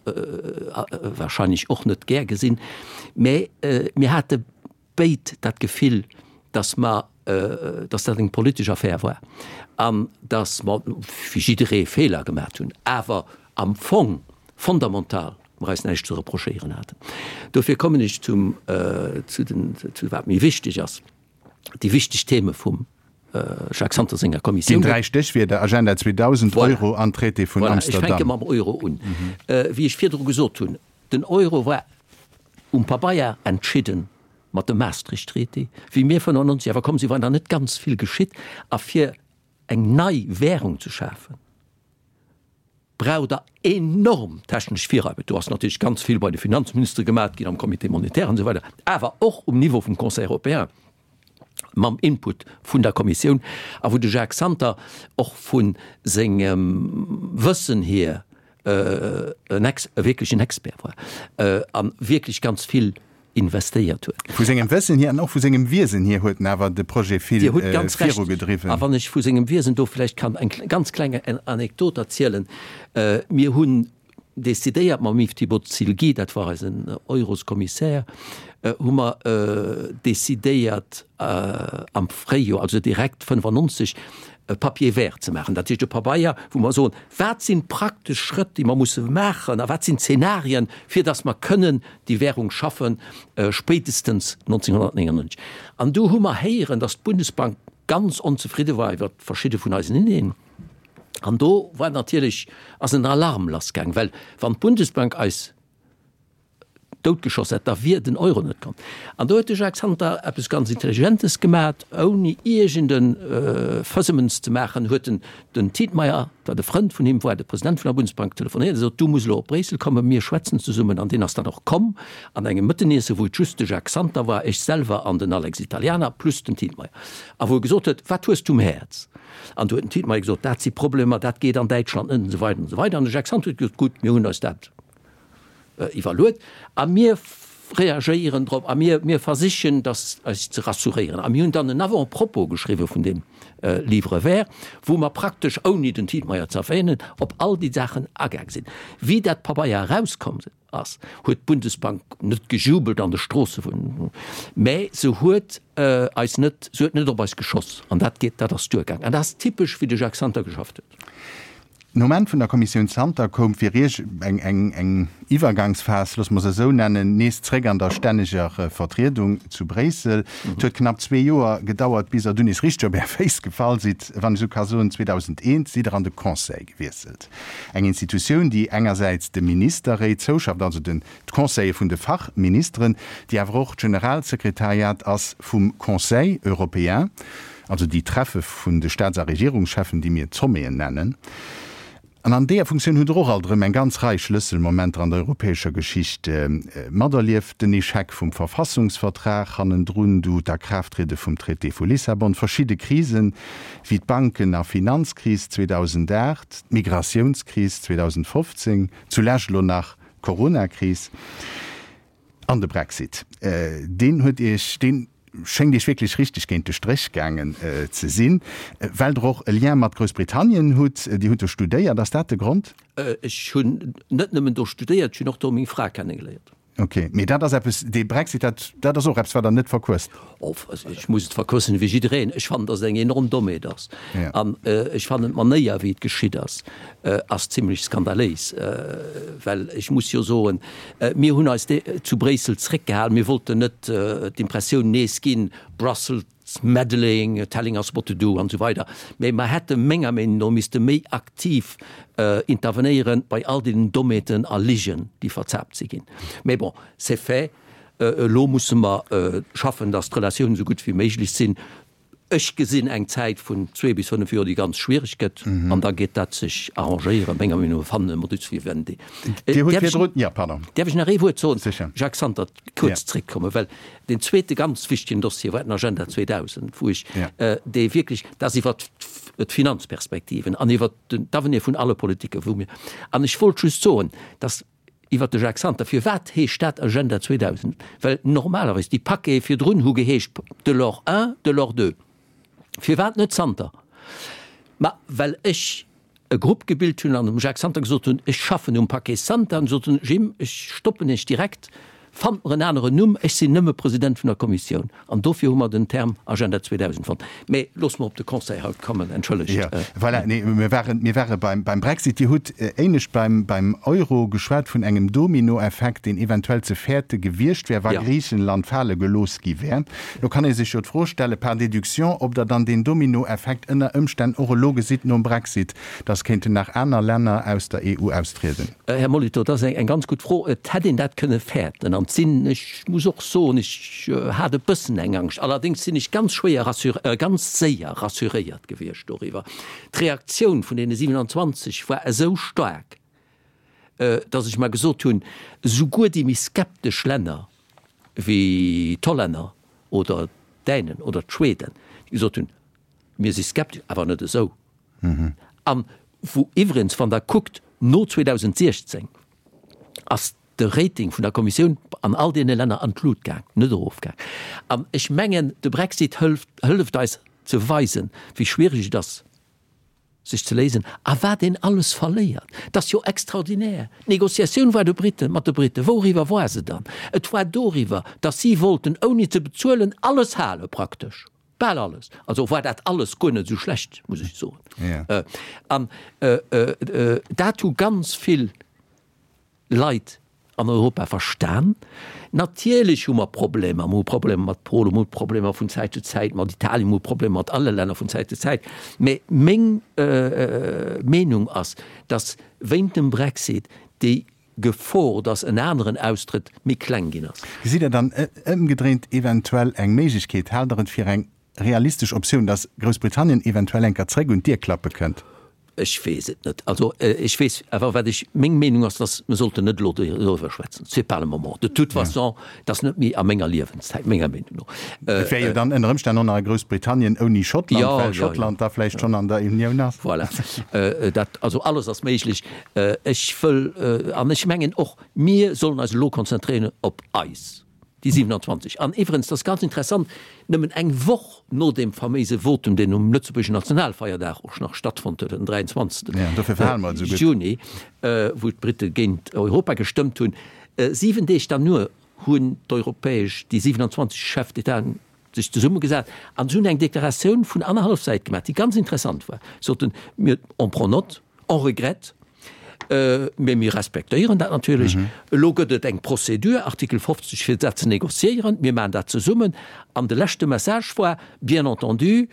wahrscheinlech och net gär gesinn, mä mir hate béid dat Gefill, datt mer, datt dat eng politesch Affär war an datt mer, wéi jidderee, Feeler gemaat hunn, awer am Fong fondamental mer eis näischt ze reprochéieren haten. Dofir kommen ech zum, zu den, zu wat méi wichteg ass, déi wichteg Theme vum Jacques Santer senger Kommissioun. Déi dräi Stéchwierder, Agenda 2000, Voilà. Euro an Traité vun Voilà, ech fänke Amsterdam. mam Euro un. Wéi ech virdru gesot hunn, den Euro war um Pabeier entschidden mat dem Maastricht-Traité, wéi mir 95 awer komm sinn, war nach net ganz vill geschitt. A fir eng nei Währung ze schafen, braucht Der enorm technesch Virarbecht. Do ass natierlech ganz vill bei de Finanzministere gemaat ginn, am Comité monétaire an esou weider, awer och um Niveau vum Conseil européen mam Input vun der Kommissioun a wou de Jacques Santer och vu sengem Wëssen hier en Ex, e wierklechen Expert war a wierklech ganz vill investéiert huet. Vu sengem Wëssen hier an och vu sengem Wiesen hier huet en awer de Projet vill Dir hutt ganz Recht. virugedriwwen. A wann ech vu sengem Wiesen do vläicht kann eng ganz kleng Anekdot erzielen, Mir hunn decidéiert mam Yves Thibault-Silgui, dat war eisen Euroskommissär, hu mer decidéiert am Fréijoer, also direkt 95, e Papier vert ze maachen, dat heescht e Pabeier, wou mer soen, wat sinn d'praktesch Schrëtt, déi mer musse maachen a wat sinn d'Zenarien, fir datt mer kënnen déi Währung schaffen, spéitestens 1999. An du hu mer héieren, datt d'Bundesbank ganz onzefridde war iwwer verschidde vun eisen Ideen. An do war natierlech, ass en Alarm lassgaang, well wann d'Bundesbank eis doutgeschoss hätt, da wier den Euro net komm. An do huet de Jacques Santer eppes ganz Intelligentes gemat, ouni iergend e Fëssemens ze maachen, huet en den Tietmeyer, wat e Frënd vun him war, de President vun der Bundesbank, telefonéiert a sot, Du muss elo op Bréissel kommen, mir schwätzen zesummen. An deen ass dann och komm an engem Mëtteniesse, wou et just de Jacques Santer war, ech selwer an den Alex Italianer plus den Tietmeyer, a wou e gesot huet, Wat hues du um Häerz? An du huet den Tietmeyer gesot, Dat si Problemer, dat geet an Däitschland net, an esou weider an esou weider. An de Jacques Santer huet gesot, Gutt, mir hunn eis dat iwwerluet a mir reagéieren drop a mir, mir versichen, dass eis ze rassuréieren. A mir hunn dann en Avant-propos geschriwwen vun deem Livre vert, wou mer praktesch, ouni den Tietmeyer ze erwähnen, op all déi Saachen agaang sinn. Wéi dat Pabeier erauskomm ass, huet d'Bundesbank net gejubelt an de Stroosse vun, mä se huet eis net, se huet net op eis geschoss. An dat geet, dat ass duergaang. An dat ass typesch, wéi de Jacques Santer geschafft huet. Nom Enn vun der Kommissioun Santer koum fir Iech eng eng eng Iwwergangsphas, loosse mer se esou nennen, nees zréck an der stänneger Vertriedung zu Bréissel. Et huet knapp zwee Joer gedauert, bis Der dunn nees richteg op Är Féiss gefall sidd, wann ech esou ka soen. 2001 sidd Der an de Conseil gewiesselt, eng Institutioun, déi engersäits de Ministerréit zouschafft, also den d'Conseiller vun de Fachministeren, déi awer och d'Generalsekretariat ass vum Conseil européen. Also déi Treffe vun de Staats a Regierungscheffen, déi mir d'Sommeten nennen. An an deeër Funktioun hutt Der och alt erëm eng ganz Rei Schlësselmomenter an der europäescher Geschicht materlieft, den Echec vum Verfassungsvertrag, hannendrun du d'Akraafttriede vum Traité vu Lissabon, verschidde Krisen, wéi d'Banken a Finanzkris 2008, d'Migratiounskris 2015, zulescht elo nach d'Coronakris. An de Brexit, deen huet Iech, dee schéngt Iech wierklech richteg géint de Stréch gaangen ze sinn, well Der och e Lien mat Groussbritannien hutt. Dir hutt do studéiert, ass dat de Grond? Ech hunn net nëmmen do studéiert, ech hunn och do meng Fra kennegeléiert. Ok, mee dat ass eppes, dee Brexit, dat, dat ass och eppes, wat Der net verquësst? Of, ech muss et verquëssen ewéi jiddereen. Ech fannen, datt et eng enorm Dommheet ass. An ech fannen d'Manéier, wéi et geschitt ass, ass zimlech skandaléis. Well ech muss jo soen, mir hunn eis zu Bréissel zréckgehalen, mir wollten net d'Impressioun nees ginn, Brussels meddling, telling us what to do an esou weider. Mä mer hätte menger Meenung no misste méi aktiv intervenéieren bei all deenen Dommheeten a Ligen, déi verzaapt si ginn. Mä bon, c'est fait. Elo musse mer schaffen, datt d'Relatiounen esou gutt wéi méiglech sinn. Ech gesinn eng Zäit vun zwee bis fënnef Joer, déi ganz schwiereg gëtt, an da geet dat sech arrangéieren, menger Meenung no, fannen e Modus vivendi. Dir hutt virdrun, jo, pardon. Däerf ech nach ee Wuert soen? Sécher. Jacques Santer, kuerz zréckkommen, well deen zweete ganz wichtegen Dossier war den Agenda 2000, wou ech, dee wierklech, dat ass iwwert d'Finanzperspektiven an iwwert d'Avenir vun alle Politiken, wou mir, an ech wollt just soen, dass, Iwwert de Jacques Santer, Firwat heescht dat Agenda 2000? Well normalerweis déi Paquete virdrun hu geheescht Delors I, Delors II. Firwat net Santer? Ma well ech e Grupp gebilt hunn an dem Jacques Santer gesot hunn, ech schaffen um Paquet Santer. An sot en, Jim, ech stoppen Iech direkt, fannt mer en aneren Numm, ech sinn nëmme President vun der Kommissioun. An dofir hu mer den Term Agenda 2000 fonnt. Mä loosse mer op de Conseil haut kommen, entschëllegt. Jo, voilà, nee, mir waren, mir ware beim, beim Brexit. Dir hutt éinescht beim, beim Euro geschwat vun engem Dominoeffekt, deen eventuell ze fäerte gewiescht wär, wa Griichenland fale gelooss gi wär. Lo kann ee sech jo d'Fro stellen, par déduction, ob Der dann deen Dominoeffekt ënner Ëmstänn och elo gesitt nom Brexit, dass kéinten nach aner Länner aus der EU austrieden. Här Molitor, dat ass eng ganz gutt Fro. Et hätt een dat kënne fäerten. An et sinn, ech muss och soen, ech hat e bëssen eng Angscht. Allerdéngs sinn ech ganz schwéier rassur, ganz séier rassuréiert gewiescht doriwwer. D'Reaktioun vun deene 27 war esou staark, datt ech mer gesot hunn, souguer déi méi skeptesch Länner wéi d'Hollänner oder d'Dänen oder d'Schweden, déi gesot hunn, Mir si skeptesch, awer net esou. An wou iwwregens, wann Der kuckt, no 2016 ass de Rating vun der Kommissioun an all deene Länner an d'Lut gaang, net erofgaang. An ech mengen, de Brexit hëlft, hëlleft eis ze weisen, wéi schwierig et ass, sech ze léisen a wat een alles verléiert. Et ass jo extraordinär. D'Negociatioun war de Briten, mat de Briten, wouriwwer war se dann? Et war doriwwer, datt si wollten, ouni ze bezuelen, alles hale praktesch. Bal alles. Also war dat alles guer net esou schlecht, muss ech soen. Ja. An dat hu ganz vill Leit an Europa verstan. Natierlech hu mer Problemer. Mer hu Problemer mat Polen, mer hu Problemer vun Zäit zu Zäit mat Italien, mer hu Problemer mat alle Länner vun Zäit zu Zäit. Mä meng Meenung ass, datt wéint dem Brexit déi Gefor, datt en aneren austrëtt, méi kleng ginn ass. Gesitt Der dann ëmgedréint eventuell eng Méiglechkeet, haalt Der et fir eng realistesch Optioun, datt Groussbritannien eventuell eng Kéier zréck un d'Dier klappe kënnt? Ech weess et net. Also ech weess awer, wat ech, meng Meenung ass, datt mer sollten net elo doriwwer schwätzen. C'est pas le moment. De toute façon, et ass net méi a menger Liewenszäit, menger Meenung no. Et wär jo dann ënner Ëmstänn och nach e Groussbritannien ouni Schottland, well Schottland da vläicht schonn an der Unioun ass. Voilà. Dat, also alles ass méiglech. Ech wëll, an ech mengen och, mir sollen eis elo konzentréieren op eis, déi 27. An iwwerens, dat ass ganz interessant, nëmmen eng Woch no deem faméise Votum, deen um lëtzebuergeschen Nationalfeierdag och nach stattfonnt huet, den 23. Juni, wou d'Britte géint Europa gestëmmt hunn, 7 Deeg derno hunn d'europäesch, déi 27 Chefs d'État sech zesummegesat an se hunn eng Deklaratioun vun annerhallef Säit gemaach, déi ganz interessant war. Soten, mir, on prend note. On regrette, mee mir respektéieren dat natierlech. Elo gëtt et eng Procédure, Artikel 50, fir dat ze négociéieren. Mir maachen dat zesummen. An de leschte Message war, bien entendu,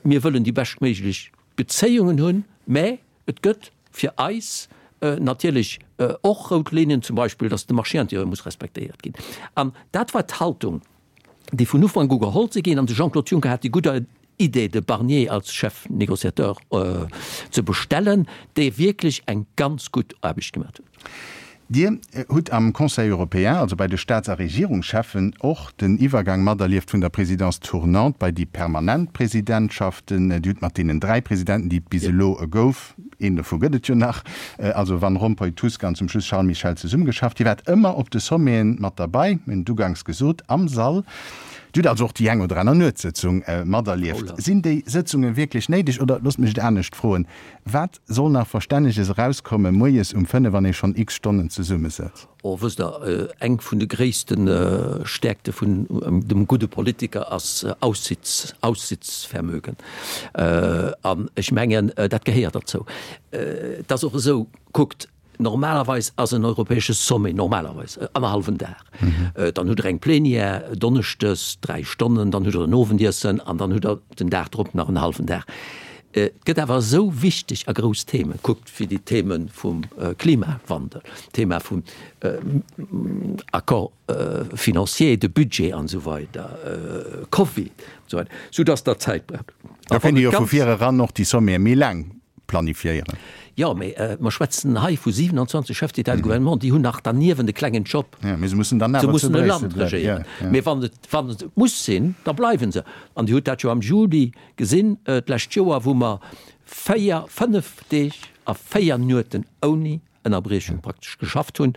mir wëllen déi beschtméiglech Bezéiungen hunn, mä et gëtt fir eis natierlech och rout Linnen, zum Beispill, datt de Marché intérieur muss respektéiert ginn. An dat war d'Haltung, déi vun Ufank u geholl si ginn. An de Jean-Claude Juncker hat déi gutt Idee, de Barnier als Chef négociateur ze bestellen, dee wierklech eng ganz gutt Aarbecht gemaach huet. Dir hutt am Conseil européen, also bei de Staats a Regierungscheffen, och den Iwwergang materlieft vun der Présidence tournante bei déi permanent Presidentschaften. Dir hutt mat deenen 3 Presidenten, déi et bis elo gouf, een dovu gëtt et jo nach, also Van Rompuy, Tusk an zum Schluss Charles Michel, zesummegeschafft. Dir waart ëmmer op de Sommeten mat derbei, mir hunn et uganks gesot, am Sall. Dir hutt also och déi eng oder aner Nuetssëtzung materlieft. Sinn déi Sëtzunge wierklech néideg oder, loosst mech et anescht froen, wat Soll nach Verstänneges erauskommen moies um 5 wann ee schonn x Stonnen zesummesëtzt? Oh, wësst Der, eng vun de gréisste Stäerkte vun dem gudde Politiker ass Aussitz, Aussitzvermögen. An ech mengen, dat gehéiert derzou. Et ass och esou, kuckt, Normalerweis ass en europäesche Sommet normalerweis annerhallwen Dag. Dann hutt Der eng Plenière donneschdes, 3 Stonnen, dann hutt Der en Owendiessen an dann hutt Der den Dag drop nach en hallwen Dag. Et gëtt awer esou wichteg a grouss Themen, kuckt wéi déi Theme vum Klimawandel, d'Thema vum Accord financier, de Budget an esou weider, Covid an esou weider, soudass Der Zäit braucht. Da kéint ee jo vu vir eran och déi Sommete méi laang planifiéieren. Jo, mee mer schwätzen hei vu 27 Chefs d'État et de gouvernement, déi hunn nach derniewent e klengen Job. Jo, mee se mussen dann awer zu Bréissel bleiwen. Mee wann et, wann et muss sinn, da bleiwe se. An Dir hutt dat jo am Juli gesinn d'lescht Joer, wou mer véier, fënnef Deeg a véier Nueten ouni Ënnerbriechung praktesch geschafft hunn,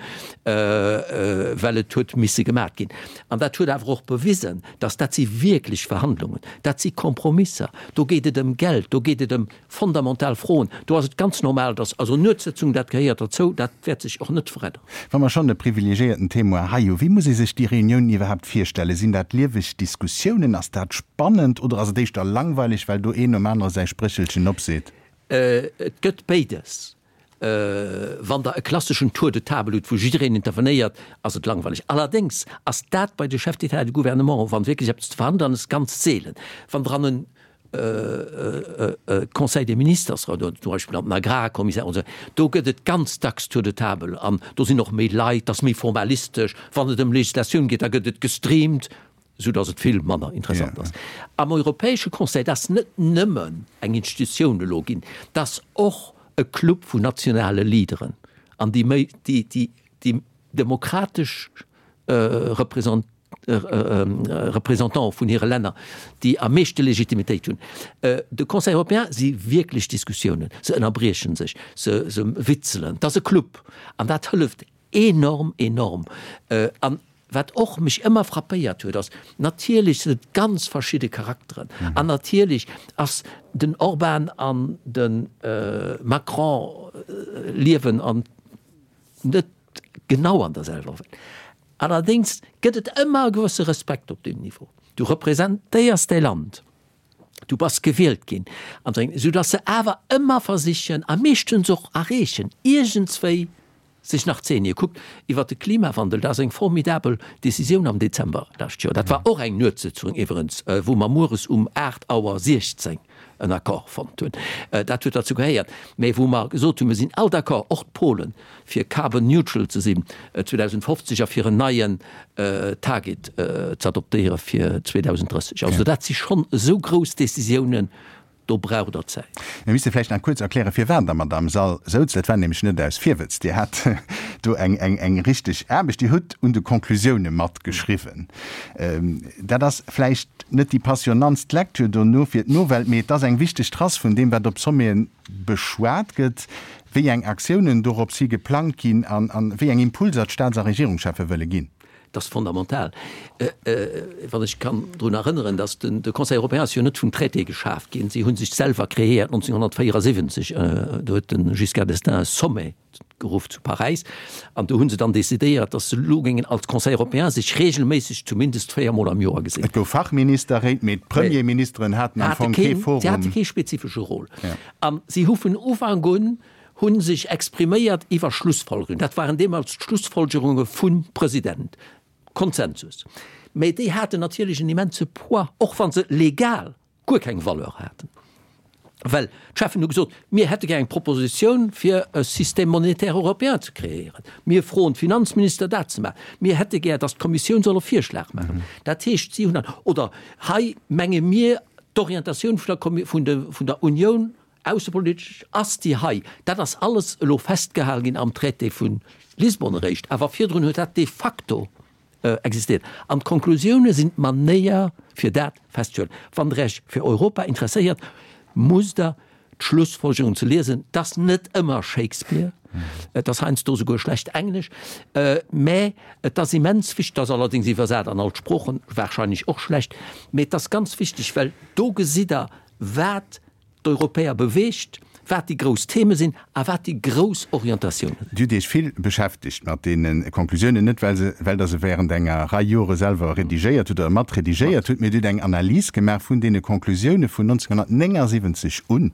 well et huet misse gemat ginn. An dat huet awer och bewisen, dass dat si wierklech Verhandlungen, dat si Kompromisser, do geet et ëm Geld, do geet et ëm fondamental Froen. Do ass et ganz normal, dass also Nuetssëtzung, dat gehéiert derzou, dat wäert sech och net veränneren. Wa mer schonn e privilegiéierten Témoin hei hu, wéi muss ee sech déi Reuniounen iwwerhaapt virstellen? Sinn dat lieweg Diskussiounen? Ass dat spannend oder ass et éischter langweileg, well do een nom anere säi Spréchelchen opseet? Et gëtt béides. Wann Der e klasseschen Tour de table hutt, wou jiddereen intervenéiert, ass et langweileg. Allerdéngs ass dat bei de Chefs d'État et de gouvernement, wann wierklech eppes ze verhandelen ass, ganz seelen. Wann Der an en Conseil des ministres oder zum Beispill an den Agrarkommissär oder esou, do gëtt et ganz dacks Tour de table an do sinn och méi Leit, dat ass méi formalistesch. Wann et ëm Legislatioun geet, da gëtt et gestreamt. Esou datt et vill manner interessant ass. Am Europäesche Conseil, dat ass net nëmmen eng Institutioun elo ginn, dat ass och e Club vun nationale Leaderen an déi méi, déi, déi, déi demokratesch Represent, Représentante vun hire Länner, déi am meeschte Legitimitéit hunn. De Conseil européen si wierklech Diskussiounen, se ënnerbrieche sech, se, se witzelen, dat ass e Club an dat hëlleft enorm, enorm. An wat och mech ëmmer frappéiert huet, ass, natierlech sinn et ganz verschidde Charakteren an natierlech ass den Orbán an de Macron liewen an net genau an der selwer Welt. Allerdéngs gëtt et ëmmer e gewësse Respekt op deem Niveau. Du representéiers däi Land, du bass gewielt ginn an esou, soudass se awer ëmmer versichen a meeschtens och erreechen, iergendswéi sech nach ze eenegen. Kuckt, iwwert de Klimawandel, dat ass eng formidabel Décisioun am Dezember lescht Joer. Dat war och eng Nuetssëtzung iwwerens, wou mer mueres um 8 Auer 16 en Accord fonnt hunn. Dat huet derzou gehéiert. Mä wou mer gesot hunn, mir sinn all d'accord, och d'Polen, fir carbon neutral ze sinn 2050 a fir en neien Target ze adoptéiere fir 2030. Also dat si schonn esou grouss Décisiounen, Do braucht Der Zäit. Mir misste vläicht nach kuerz erklären, firwat Der mat am Sall souz. Dat war nämlech net aus Virwëtz. Dir hat do eng, eng, eng richteg Aarbecht. Dir hutt un de Konklusioune matgeschriwwen. Dat ass vläicht net déi passionantst Lecture dono fir d'Nowelt, mee et ass eng wichteg Trace vun deem, wat op Sommeten beschwat gëtt, wéi eng Aktiounen dorops hi geplangt ginn an, an wéi eng Impulser d'Staats a Regierungscheffe wëlle ginn. Dat ass fondamental. Wann ech kann drun erënneren, datt de Conseil européen ass jo net vum Traité geschaaft ginn. Si hu sech selwer kreéiert 1974. Do huet de Giscard d'Estaing e Sommet geruff zu Paräis an do hu se dann decidéiert, datt se elo géingen als Conseil européen sech regelméisseg zumindest véiermol am Joer gesinn. Et gouf Fachministerréit, mee d'Premierministeren haten am Fong kee Forum. Si hate kee spezifesche Rôle. A si hu vun Ufank un. hu sech expriméiert iwwer Schlussfolgerungen. Dat waren deemools d'Schlussfolgerunge vum President. Konsensus. Mä déi haten natierlech en immense Poids, och wa se legal guer keng Valeur haten. Well d'Cheffen hu gesot, mir hätte gär eng Propositioun fir e Système monétaire européen ze kreéieren. Mir froen d'Finanzminister dat ze maachen. Mir hätte gär, datt d'Kommissioun soll e Virschlag maachen. Dat heescht, si hunn dann, oder hei menge mir, d'Orientatioun vun der Kommi-, vun de, vun der Unioun aussepolitesch ass déi hei. Dat ass alles elo festgehal ginn am Traité vu Lisbon eréischt. Awer virdrun huet dat de facto existéiert. An d'Konklusioune sinn d'Manéier, fir dat festzehuelen. Wann Der Iech fir Europa interesséiert, musst Der d'Schlussfolgerungen ze liesen. Et ass net ëmmer Shakespeare, et ass heiansdo souguer schlecht Englesch, mä et ass immens wichteg, et ass allerdéngs iwwersat an all d'Sproochen, warscheinlech och schlecht, mä et ass ganz wichteg, well do gesitt Der, wat d'Europäer beweegt, wat déi grouss Theme sinn a wat déi grouss Orientatiounen sinn. Dir hutt Iech vill beschäftegt mat deene Konklusiounen, net well se, well Der se während enger Rei Jore selwer redigéiert hutt oder mat redigéiert hutt, mee Dir hutt eng Analys gemaach vun deene Konklusioune vun 1979 un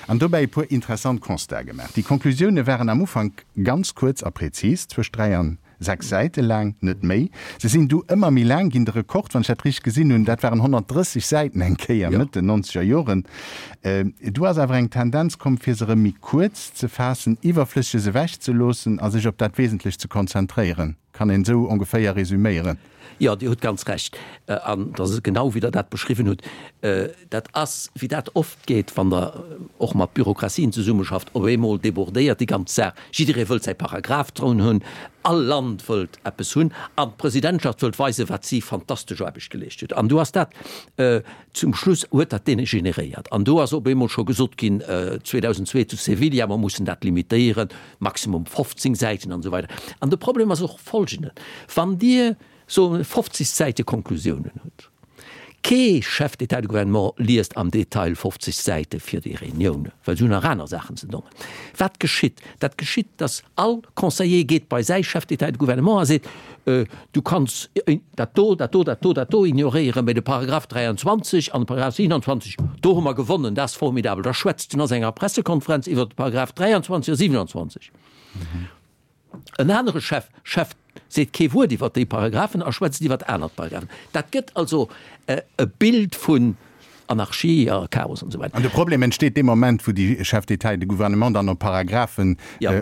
an dobäi e puer interessant Constate gemaach. Déi Konklusioune waren am Ufank ganz kuerz a präzis, zwëscht 3 an 6 Säite laang, net méi. Se sinn du ëmmer méi laang ginn. De Rekord, wann ech dat richteg gesinn hunn, dat waren 130 Säiten eng Kéier Mëtt den nonzeger Joren. Du ass awer eng Tendenz komm, fir se erëm méi kuerz ze faassen, Iwwerflësseges ewech ze loossen a sech op dat Wesentlecht ze konzentréieren. Kann een esou ongeféier resüméieren? Jo, Dir hutt ganz Recht. An et ass genau, wéi Der dat beschriwwen hutt. Dat ass, wéi dat oft geet, wann Der och mat Bürokratien zesummeschafft, op eemol débordéiert déi ganz Saach. Jidderee wëllt säi Paragraph drun hunn, all Land wëllt eppes hunn an d'Presidentschaft wëllt weisen, wat si fantastesch Aarbecht geleescht huet. An do ass dat, zum Schluss huet dat degeneréiert. An do ass op eemol scho gesot ginn, 2002 zu Sevilla, mer mussen dat limitéieren, maximum 15 Säiten an esou weider. An de Problem ass och folgenden, Wann Dir, soe mer, 50 Säite Konklusiounen hutt, Kee Chef d'État et de gouvernement liest am Detail 50 Säite fir déi Reunioune, well se hunn nach aner Saachen ze dongen. Wat geschitt? Dat geschitt, datt all Conseiller geet bei säi Chef d'État et de gouvernement a seet, Du kanns dat do, dat do, dat do, dat do ignoréieren, mä de Paragraph 23 an de Paragraph 27, do hu mer gewonnen, dat ass formidabel. Da schwätzt en a senger Pressekonferenz iwwert de Paragraph 23 a 27. En anere Chef, Chef seet kee Wuert iwwert déi Paragraphen a schwätzt iwwert aner Paragraphen. Dat gëtt also e Bild vun Anarchie a Chaos an esou weider. An de Problem entsteet dee Moment, wou déi Chefs d'État et de gouvernement dann op Paragraphen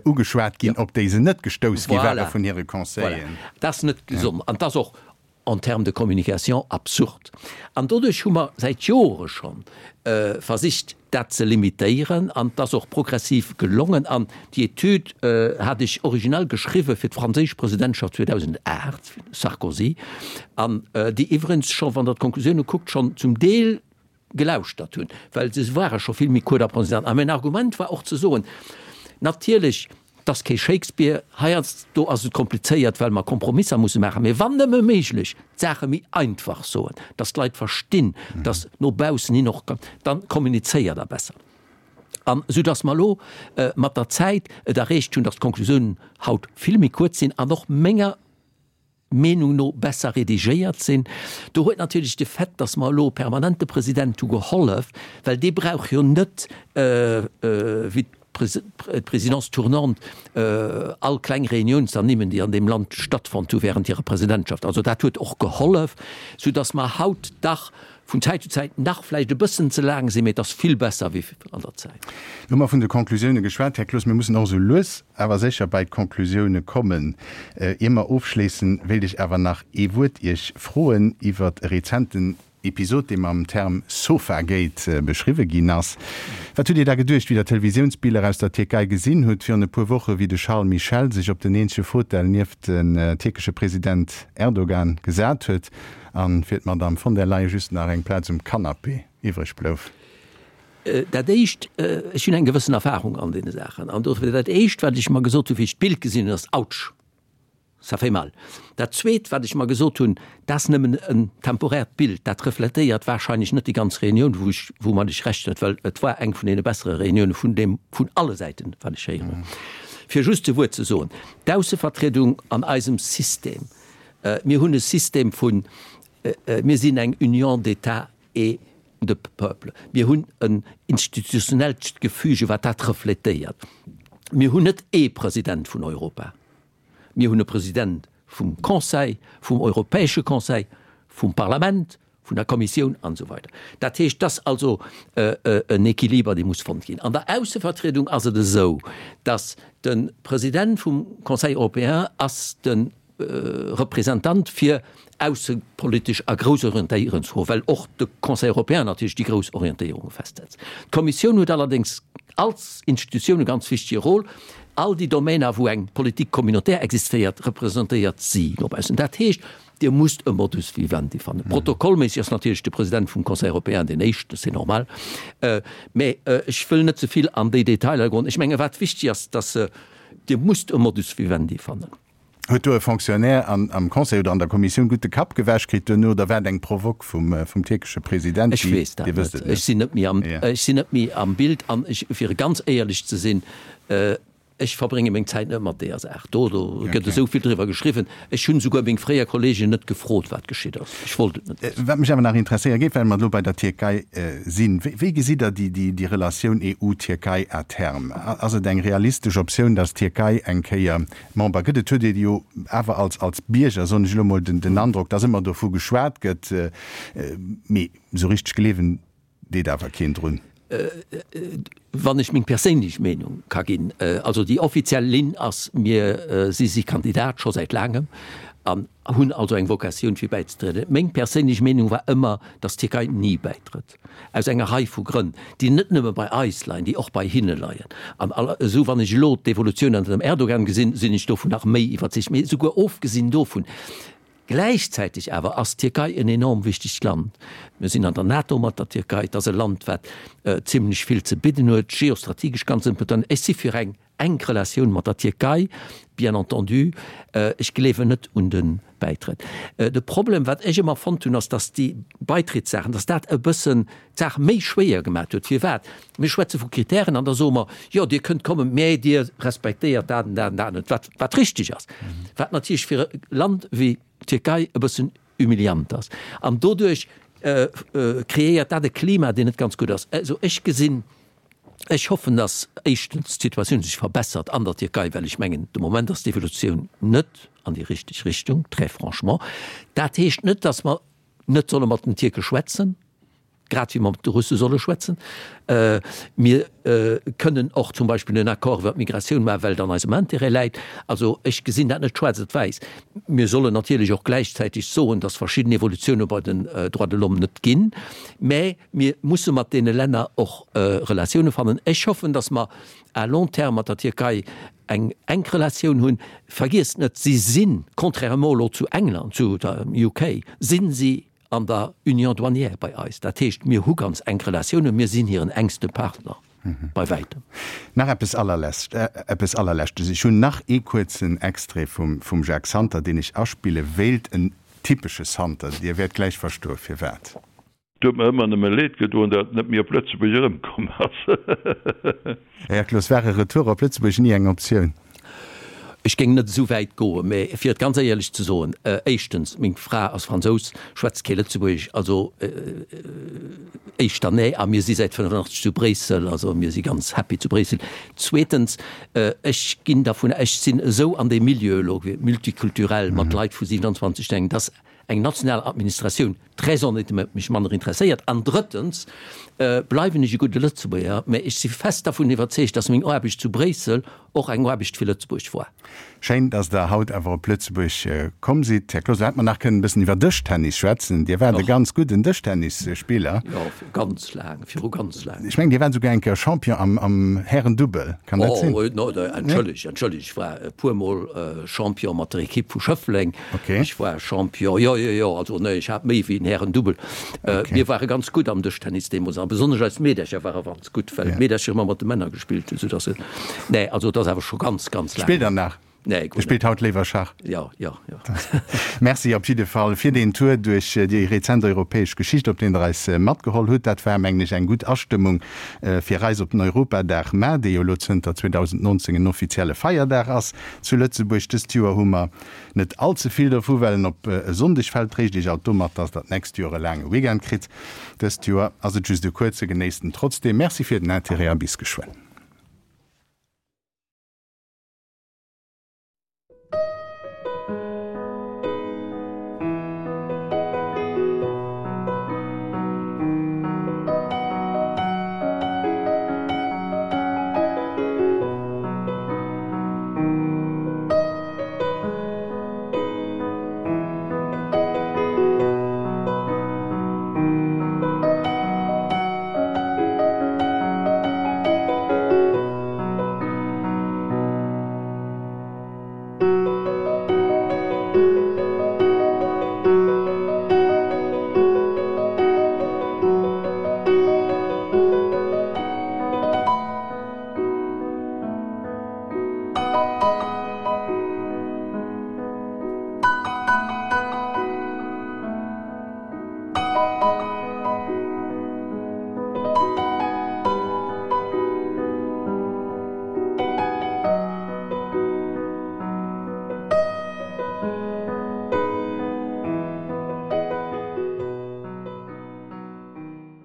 ugeschwat ginn, op déi se net gestouss gi ware vun hire Conseilleren. Voilà. Dat ass net gesond an dat ass och en termes de communication absurd. An doduerch hu mer säit Jore scho versicht, dat ze limitéieren, an et ass och progressiv gelongen. An déi Etüd hat ech originell geschriwwe fir d'franséisch Presidentschaft 2008, Sarkozy, an déi iwwerens scho, wann Der d'Konklusioune kuckt, schonn zum Deel gelauschtert hunn, well se ware scho vill méi kuert a präzis. A mäin Argument war och ze soen, natierlech, 't ass kee Shakespeare, heiansdo ass et komplizéiert, well mer Kompromisser musse maachen, mee wann nëmme méiglech, d'Saache méi einfach soen, dass d'Leit verstinn, dass no baussen hin och, dann kommunizéiert Der besser. An esou dass mer elo mat der Zäit et erreecht hunn, dass d'Konklusiounen haut vill méi kuerz sinn an och menger Meenung no besser redigéiert sinn. Do huet natierlech de Fait, dass mer elo e permanente President hu gehollef, well dee brauch jo net, wéi d'Présidence tournante, all kleng Reunioun ze ernimmen, déi an deem Land stattfonnt hu während hirer Presidentschaft. Also dat huet och gehollef, soudass mer haut dach vun Zäit zu Zäit nach vläicht e bëssen ze laang sinn, mee et ass vill besser wéi an der Zäit. Lo hu mer vun de Conclusioune geschwat, Här Cloos. Mir mussen och esou lues awer sécher bei d'Conclusioune kommen. Ier mer ofschléissen, wéilt ech awer nach ee Wuert Iech froen iwwert e rezenten Episod, dee mam Term Sofagate beschriwwe ginn ass. Wat hutt Dir da geduecht, wéi Der d'Televisiounsbiller aus der Tierkei gesinn hutt virun e puer Woche, wéi de Charles Michel sech op den eenzege Fautel nieft den tierkesche President Erdogan gesat huet? An fir d'Madame von der Leyen just nach eng Plaz um Canapé iwwreg blouf. Dat Éischt, ech hunn eng gewëssen Erfahrung an deene Saachen, an dofir dat Éischt, wat ech mer gesot hunn, wéi ech d'Bild gesinn hunn, ass, Autsch, ça fait mal. Dat Zweet, wat ech mer gesot hunn, dat ass nëmmen en temporäert Bild, dat refletéiert wahrscheinlech net déi ganz Reunioun, wou ech, woumat ech Recht huet, well et war eng vun deene bessere Reunioune vun deem, vun alle Säiten, wat ech héieren hunn. Fir just e Wuert ze soen, D'Aussevertriedung an eisem System, Mir hunn e System vun, mir sinn eng Union d'États et de peuples. Mir hunn en institutionellt Gefüge, wat dat refletéiert. Mir hunn net ee President vun Europa. Mir hunn e President vum Conseil, vum Europäesche Conseil, vum Parlament, vun der Kommissioun an esou weider. Dat heescht, et ass also en Équiliber, dee muss fonnt ginn. An der Aussevertriedung ass et esou, datt de President vum Conseil européen ass de Representant fir aussepolitesch a grouss Orientéierungsfroen, well och de Conseil européen natierlech déi grouss Orientéierunge festsetzt. D'Kommissioun huet allerdéngs als Institutioun e ganz wichtige Rôle. All déi Domainer, wou eng Politique communautaire existéiert, representéiert si no baussen. Dat heescht, Dir musst e Modus vivendi fannen. Protokollméisseg ass natierlech de President vum Conseil européen deen éischten, c'est normal. Mä ech wëll net ze vill an déi Detailer goen. Ech menge wat wichteg ass, dass Dir musst e Modus vivendi fannen. Huet do e Fonctionnaire am Conseil oder an der Kommissioun gutt de Kapp gewäsch kritt duerno oder war et eng Provoque vum tierkesche President? Ech weess dat net. Ech sinn net méi am, ech sinn net méi am Bild an ech, fir ganz éierlech ze sinn, ech verbrénge meng Zäit net mat deeër Saach do. Do gëtt esou vill driwwer geschriwwen. Ech hunn esouguer meng fréier Kolleegen net gefrot, wat geschitt ass. Ech wollt et net wëssen. Wat mech awer nach interesséiere géif, well mer elo bei der Tierkei sinn, Wéi gesitt Der déi Relatioun EU-Tierkei à terme? Ass et eng realistesch Optioun, datt d'Tierkei eng Kéier Member gëtt. Et huet ee jo awer als als Bierger, soen ech elo mol, den den Androck, dass ëmmer dovu geschwat gëtt, mee esou richteg gleewen deet awer keen drun. Wann ech meng perséinlech Meenung ka ginn, also déi offiziell Linn ass, mir si si Kandidat scho säit laangem an hunn also eng Vocatioun fir bäizetrieden. Meng perséinlech Meenung war ëmmer, dass d'Tierkei ni bäitrëtt. Aus enger Rei vu Grënn, déi net nëmme bei eis leien, déi och bei hinne leien. An esou, wann ech elo d'Evolutioun ënner dem Erdogan gesinn, sinn ech dovun nach méi iwwerzeegt. Mee esouguer ofgesinn dovun, gläichzäiteg awer ass d'Tierkei en enorm wichtegt Land. Mir sinn an der NATO mat der Tierkei. Et ass e Land, wat zimlech vill ze bidden huet, geostrategesch ganz important. Ech si fir eng enk Relatioun mat der Tierkei, bien entendu. Ech gleewen net un de Bäitrëtt. De Problem, wat ech ëmmer fonnt hunn, ass, datt déi Baitrittssaachen, datt dat e bëssen d'Saach méi schwéier gemaat huet. Firwat? Mir schwätze vu Kritären an da soe mer, jo, Dir kënnt kommen, mä Dir respektéiert dat an dat an dat net, wat, wat richtig ass, wat natierlech fir e Land wéi d'Tierkei e bëssen humiliant ass. An doduerch kreéiert dat e Klima, deen net ganz gutt ass. Also ech gesinn, Ech hoffen, dass éischtens d'Situatioun sech verbessert an der Tierkei, well ech mengen, de Moment ass d'Evolutioun net an déi richteg Richtung, très franchement. Dat heescht net, dass mer net solle mat den Tierke schwätzen, grad wéi mer mat de Russe solle schwätzen. Mir kënnen och zum Beispill en Accord iwwer d'Migratioun maachen, well et an eisem Intérêt läit. Also ech gesinn dat net schwaarz op wäiss. Mir sollen natierlech och gläichzäiteg soen, dass verschidden Evolutioune bei den Droits de l'homme net ginn, mä Mir musse mat deene Länner och Relatioune fannen. Ech hoffen, datt mer à long terme mat der Tierkei eng enk Relatioun hunn. Vergiesst net, si sinn, contrairement elo zu England, zu der UK, sinn si an der Union douanière bei eis. Dat heescht, mir hu ganz enk Relatiounen, mir sinn hiren enkste Partner bei wäitem. Nach eppes allerlescht, eppes allerleschtes. Ech hunn nach ee kuerzen Extrait vum, vum Jacques Santer, deen ech aspille wéilt. En typesche Santer. Dir wäert gläich verstoe firwat. Et huet mer ëmmer nëmme Leed gedoen, dat en net méi op Lëtzebuerg erëmkomm ass. Här Cloos, war e Retour op Lëtzebuerg ni eng Optioun? Ech géing net esou wäit goen, mä fir et ganz éierlech ze soen, éischtens, meng Fra ass Fransous, schwätzt kee Lëtzebuergesch, also éischter nee, a mir si säit 85 zu Bréissel, also mir si ganz happy zu Bréissel. Zweetens, ech ginn dervun, ech sinn esou an deem Milieu elo, multikulturell, mat Leit vu 27 Länner, dass eng national Administratioun très honnêtement mech manner interesséiert. An drëttens bleiwen ech e gudde Lëtzebuerger, mä ech si fest dervun iwwerzeegt, dass meng Aarbecht zu Bréissel och eng Aarbecht fir Lëtzebuerg war. Schéin, dass Der haut awer op Lëtzebuerg komm sidd. Här Cloos, lo hätte mer nach kënnen e bëssen iwwer Dëschtennis schwätzen. Dir waart e ganz gudden Dëschtennisspiller. Jo, ganz laang, viru ganz laang. Ech mengen, Dir waart esouguer eng Kéier Champion am, am Härendubbel. Kann dat sinn? Oh, no, entschëllegt, entschëllegt, ech war e puermol Champion mat der Ekipp vu Schëffleng. Okay. Ech war Champion, jo, jo, jo, also nee, ech hat méi wéi en Härendubbel. Okay. Mir ware ganz gutt am Dëschtennis deemools a besonnesch eis Meedercher ware ganz gutt, well d'Meedercher ëmmer mat de Männer gespillt hunn, soudass se, nee, also et ass awer scho ganz, ganz laang Spillt der nach? Nee, guer Dir spillt net. haut léiwer Schach? Jo, jo, jo. Merci op jidde Fall fir deen Tour duerch déi rezent europäesch Geschicht, op deen Der eis matgeholl hutt. Dat war, mengen ech, eng gutt Astëmmung fir eis op den Europadag mar, dee jo elo zënter 2019 en offizielle Feierdag ass zu Lëtzebuerg. Dëst Joer hu mer Net all ze vill dovu, well en op e Sonndeg fält. Tréischt Iech alt domat, dass der d'nächst Joer e laange Weekend kritt. Dëst Joer ass et just e kuerze, genéisst en trotzdeem. Merci fir den Intérêt a bis geschwënn.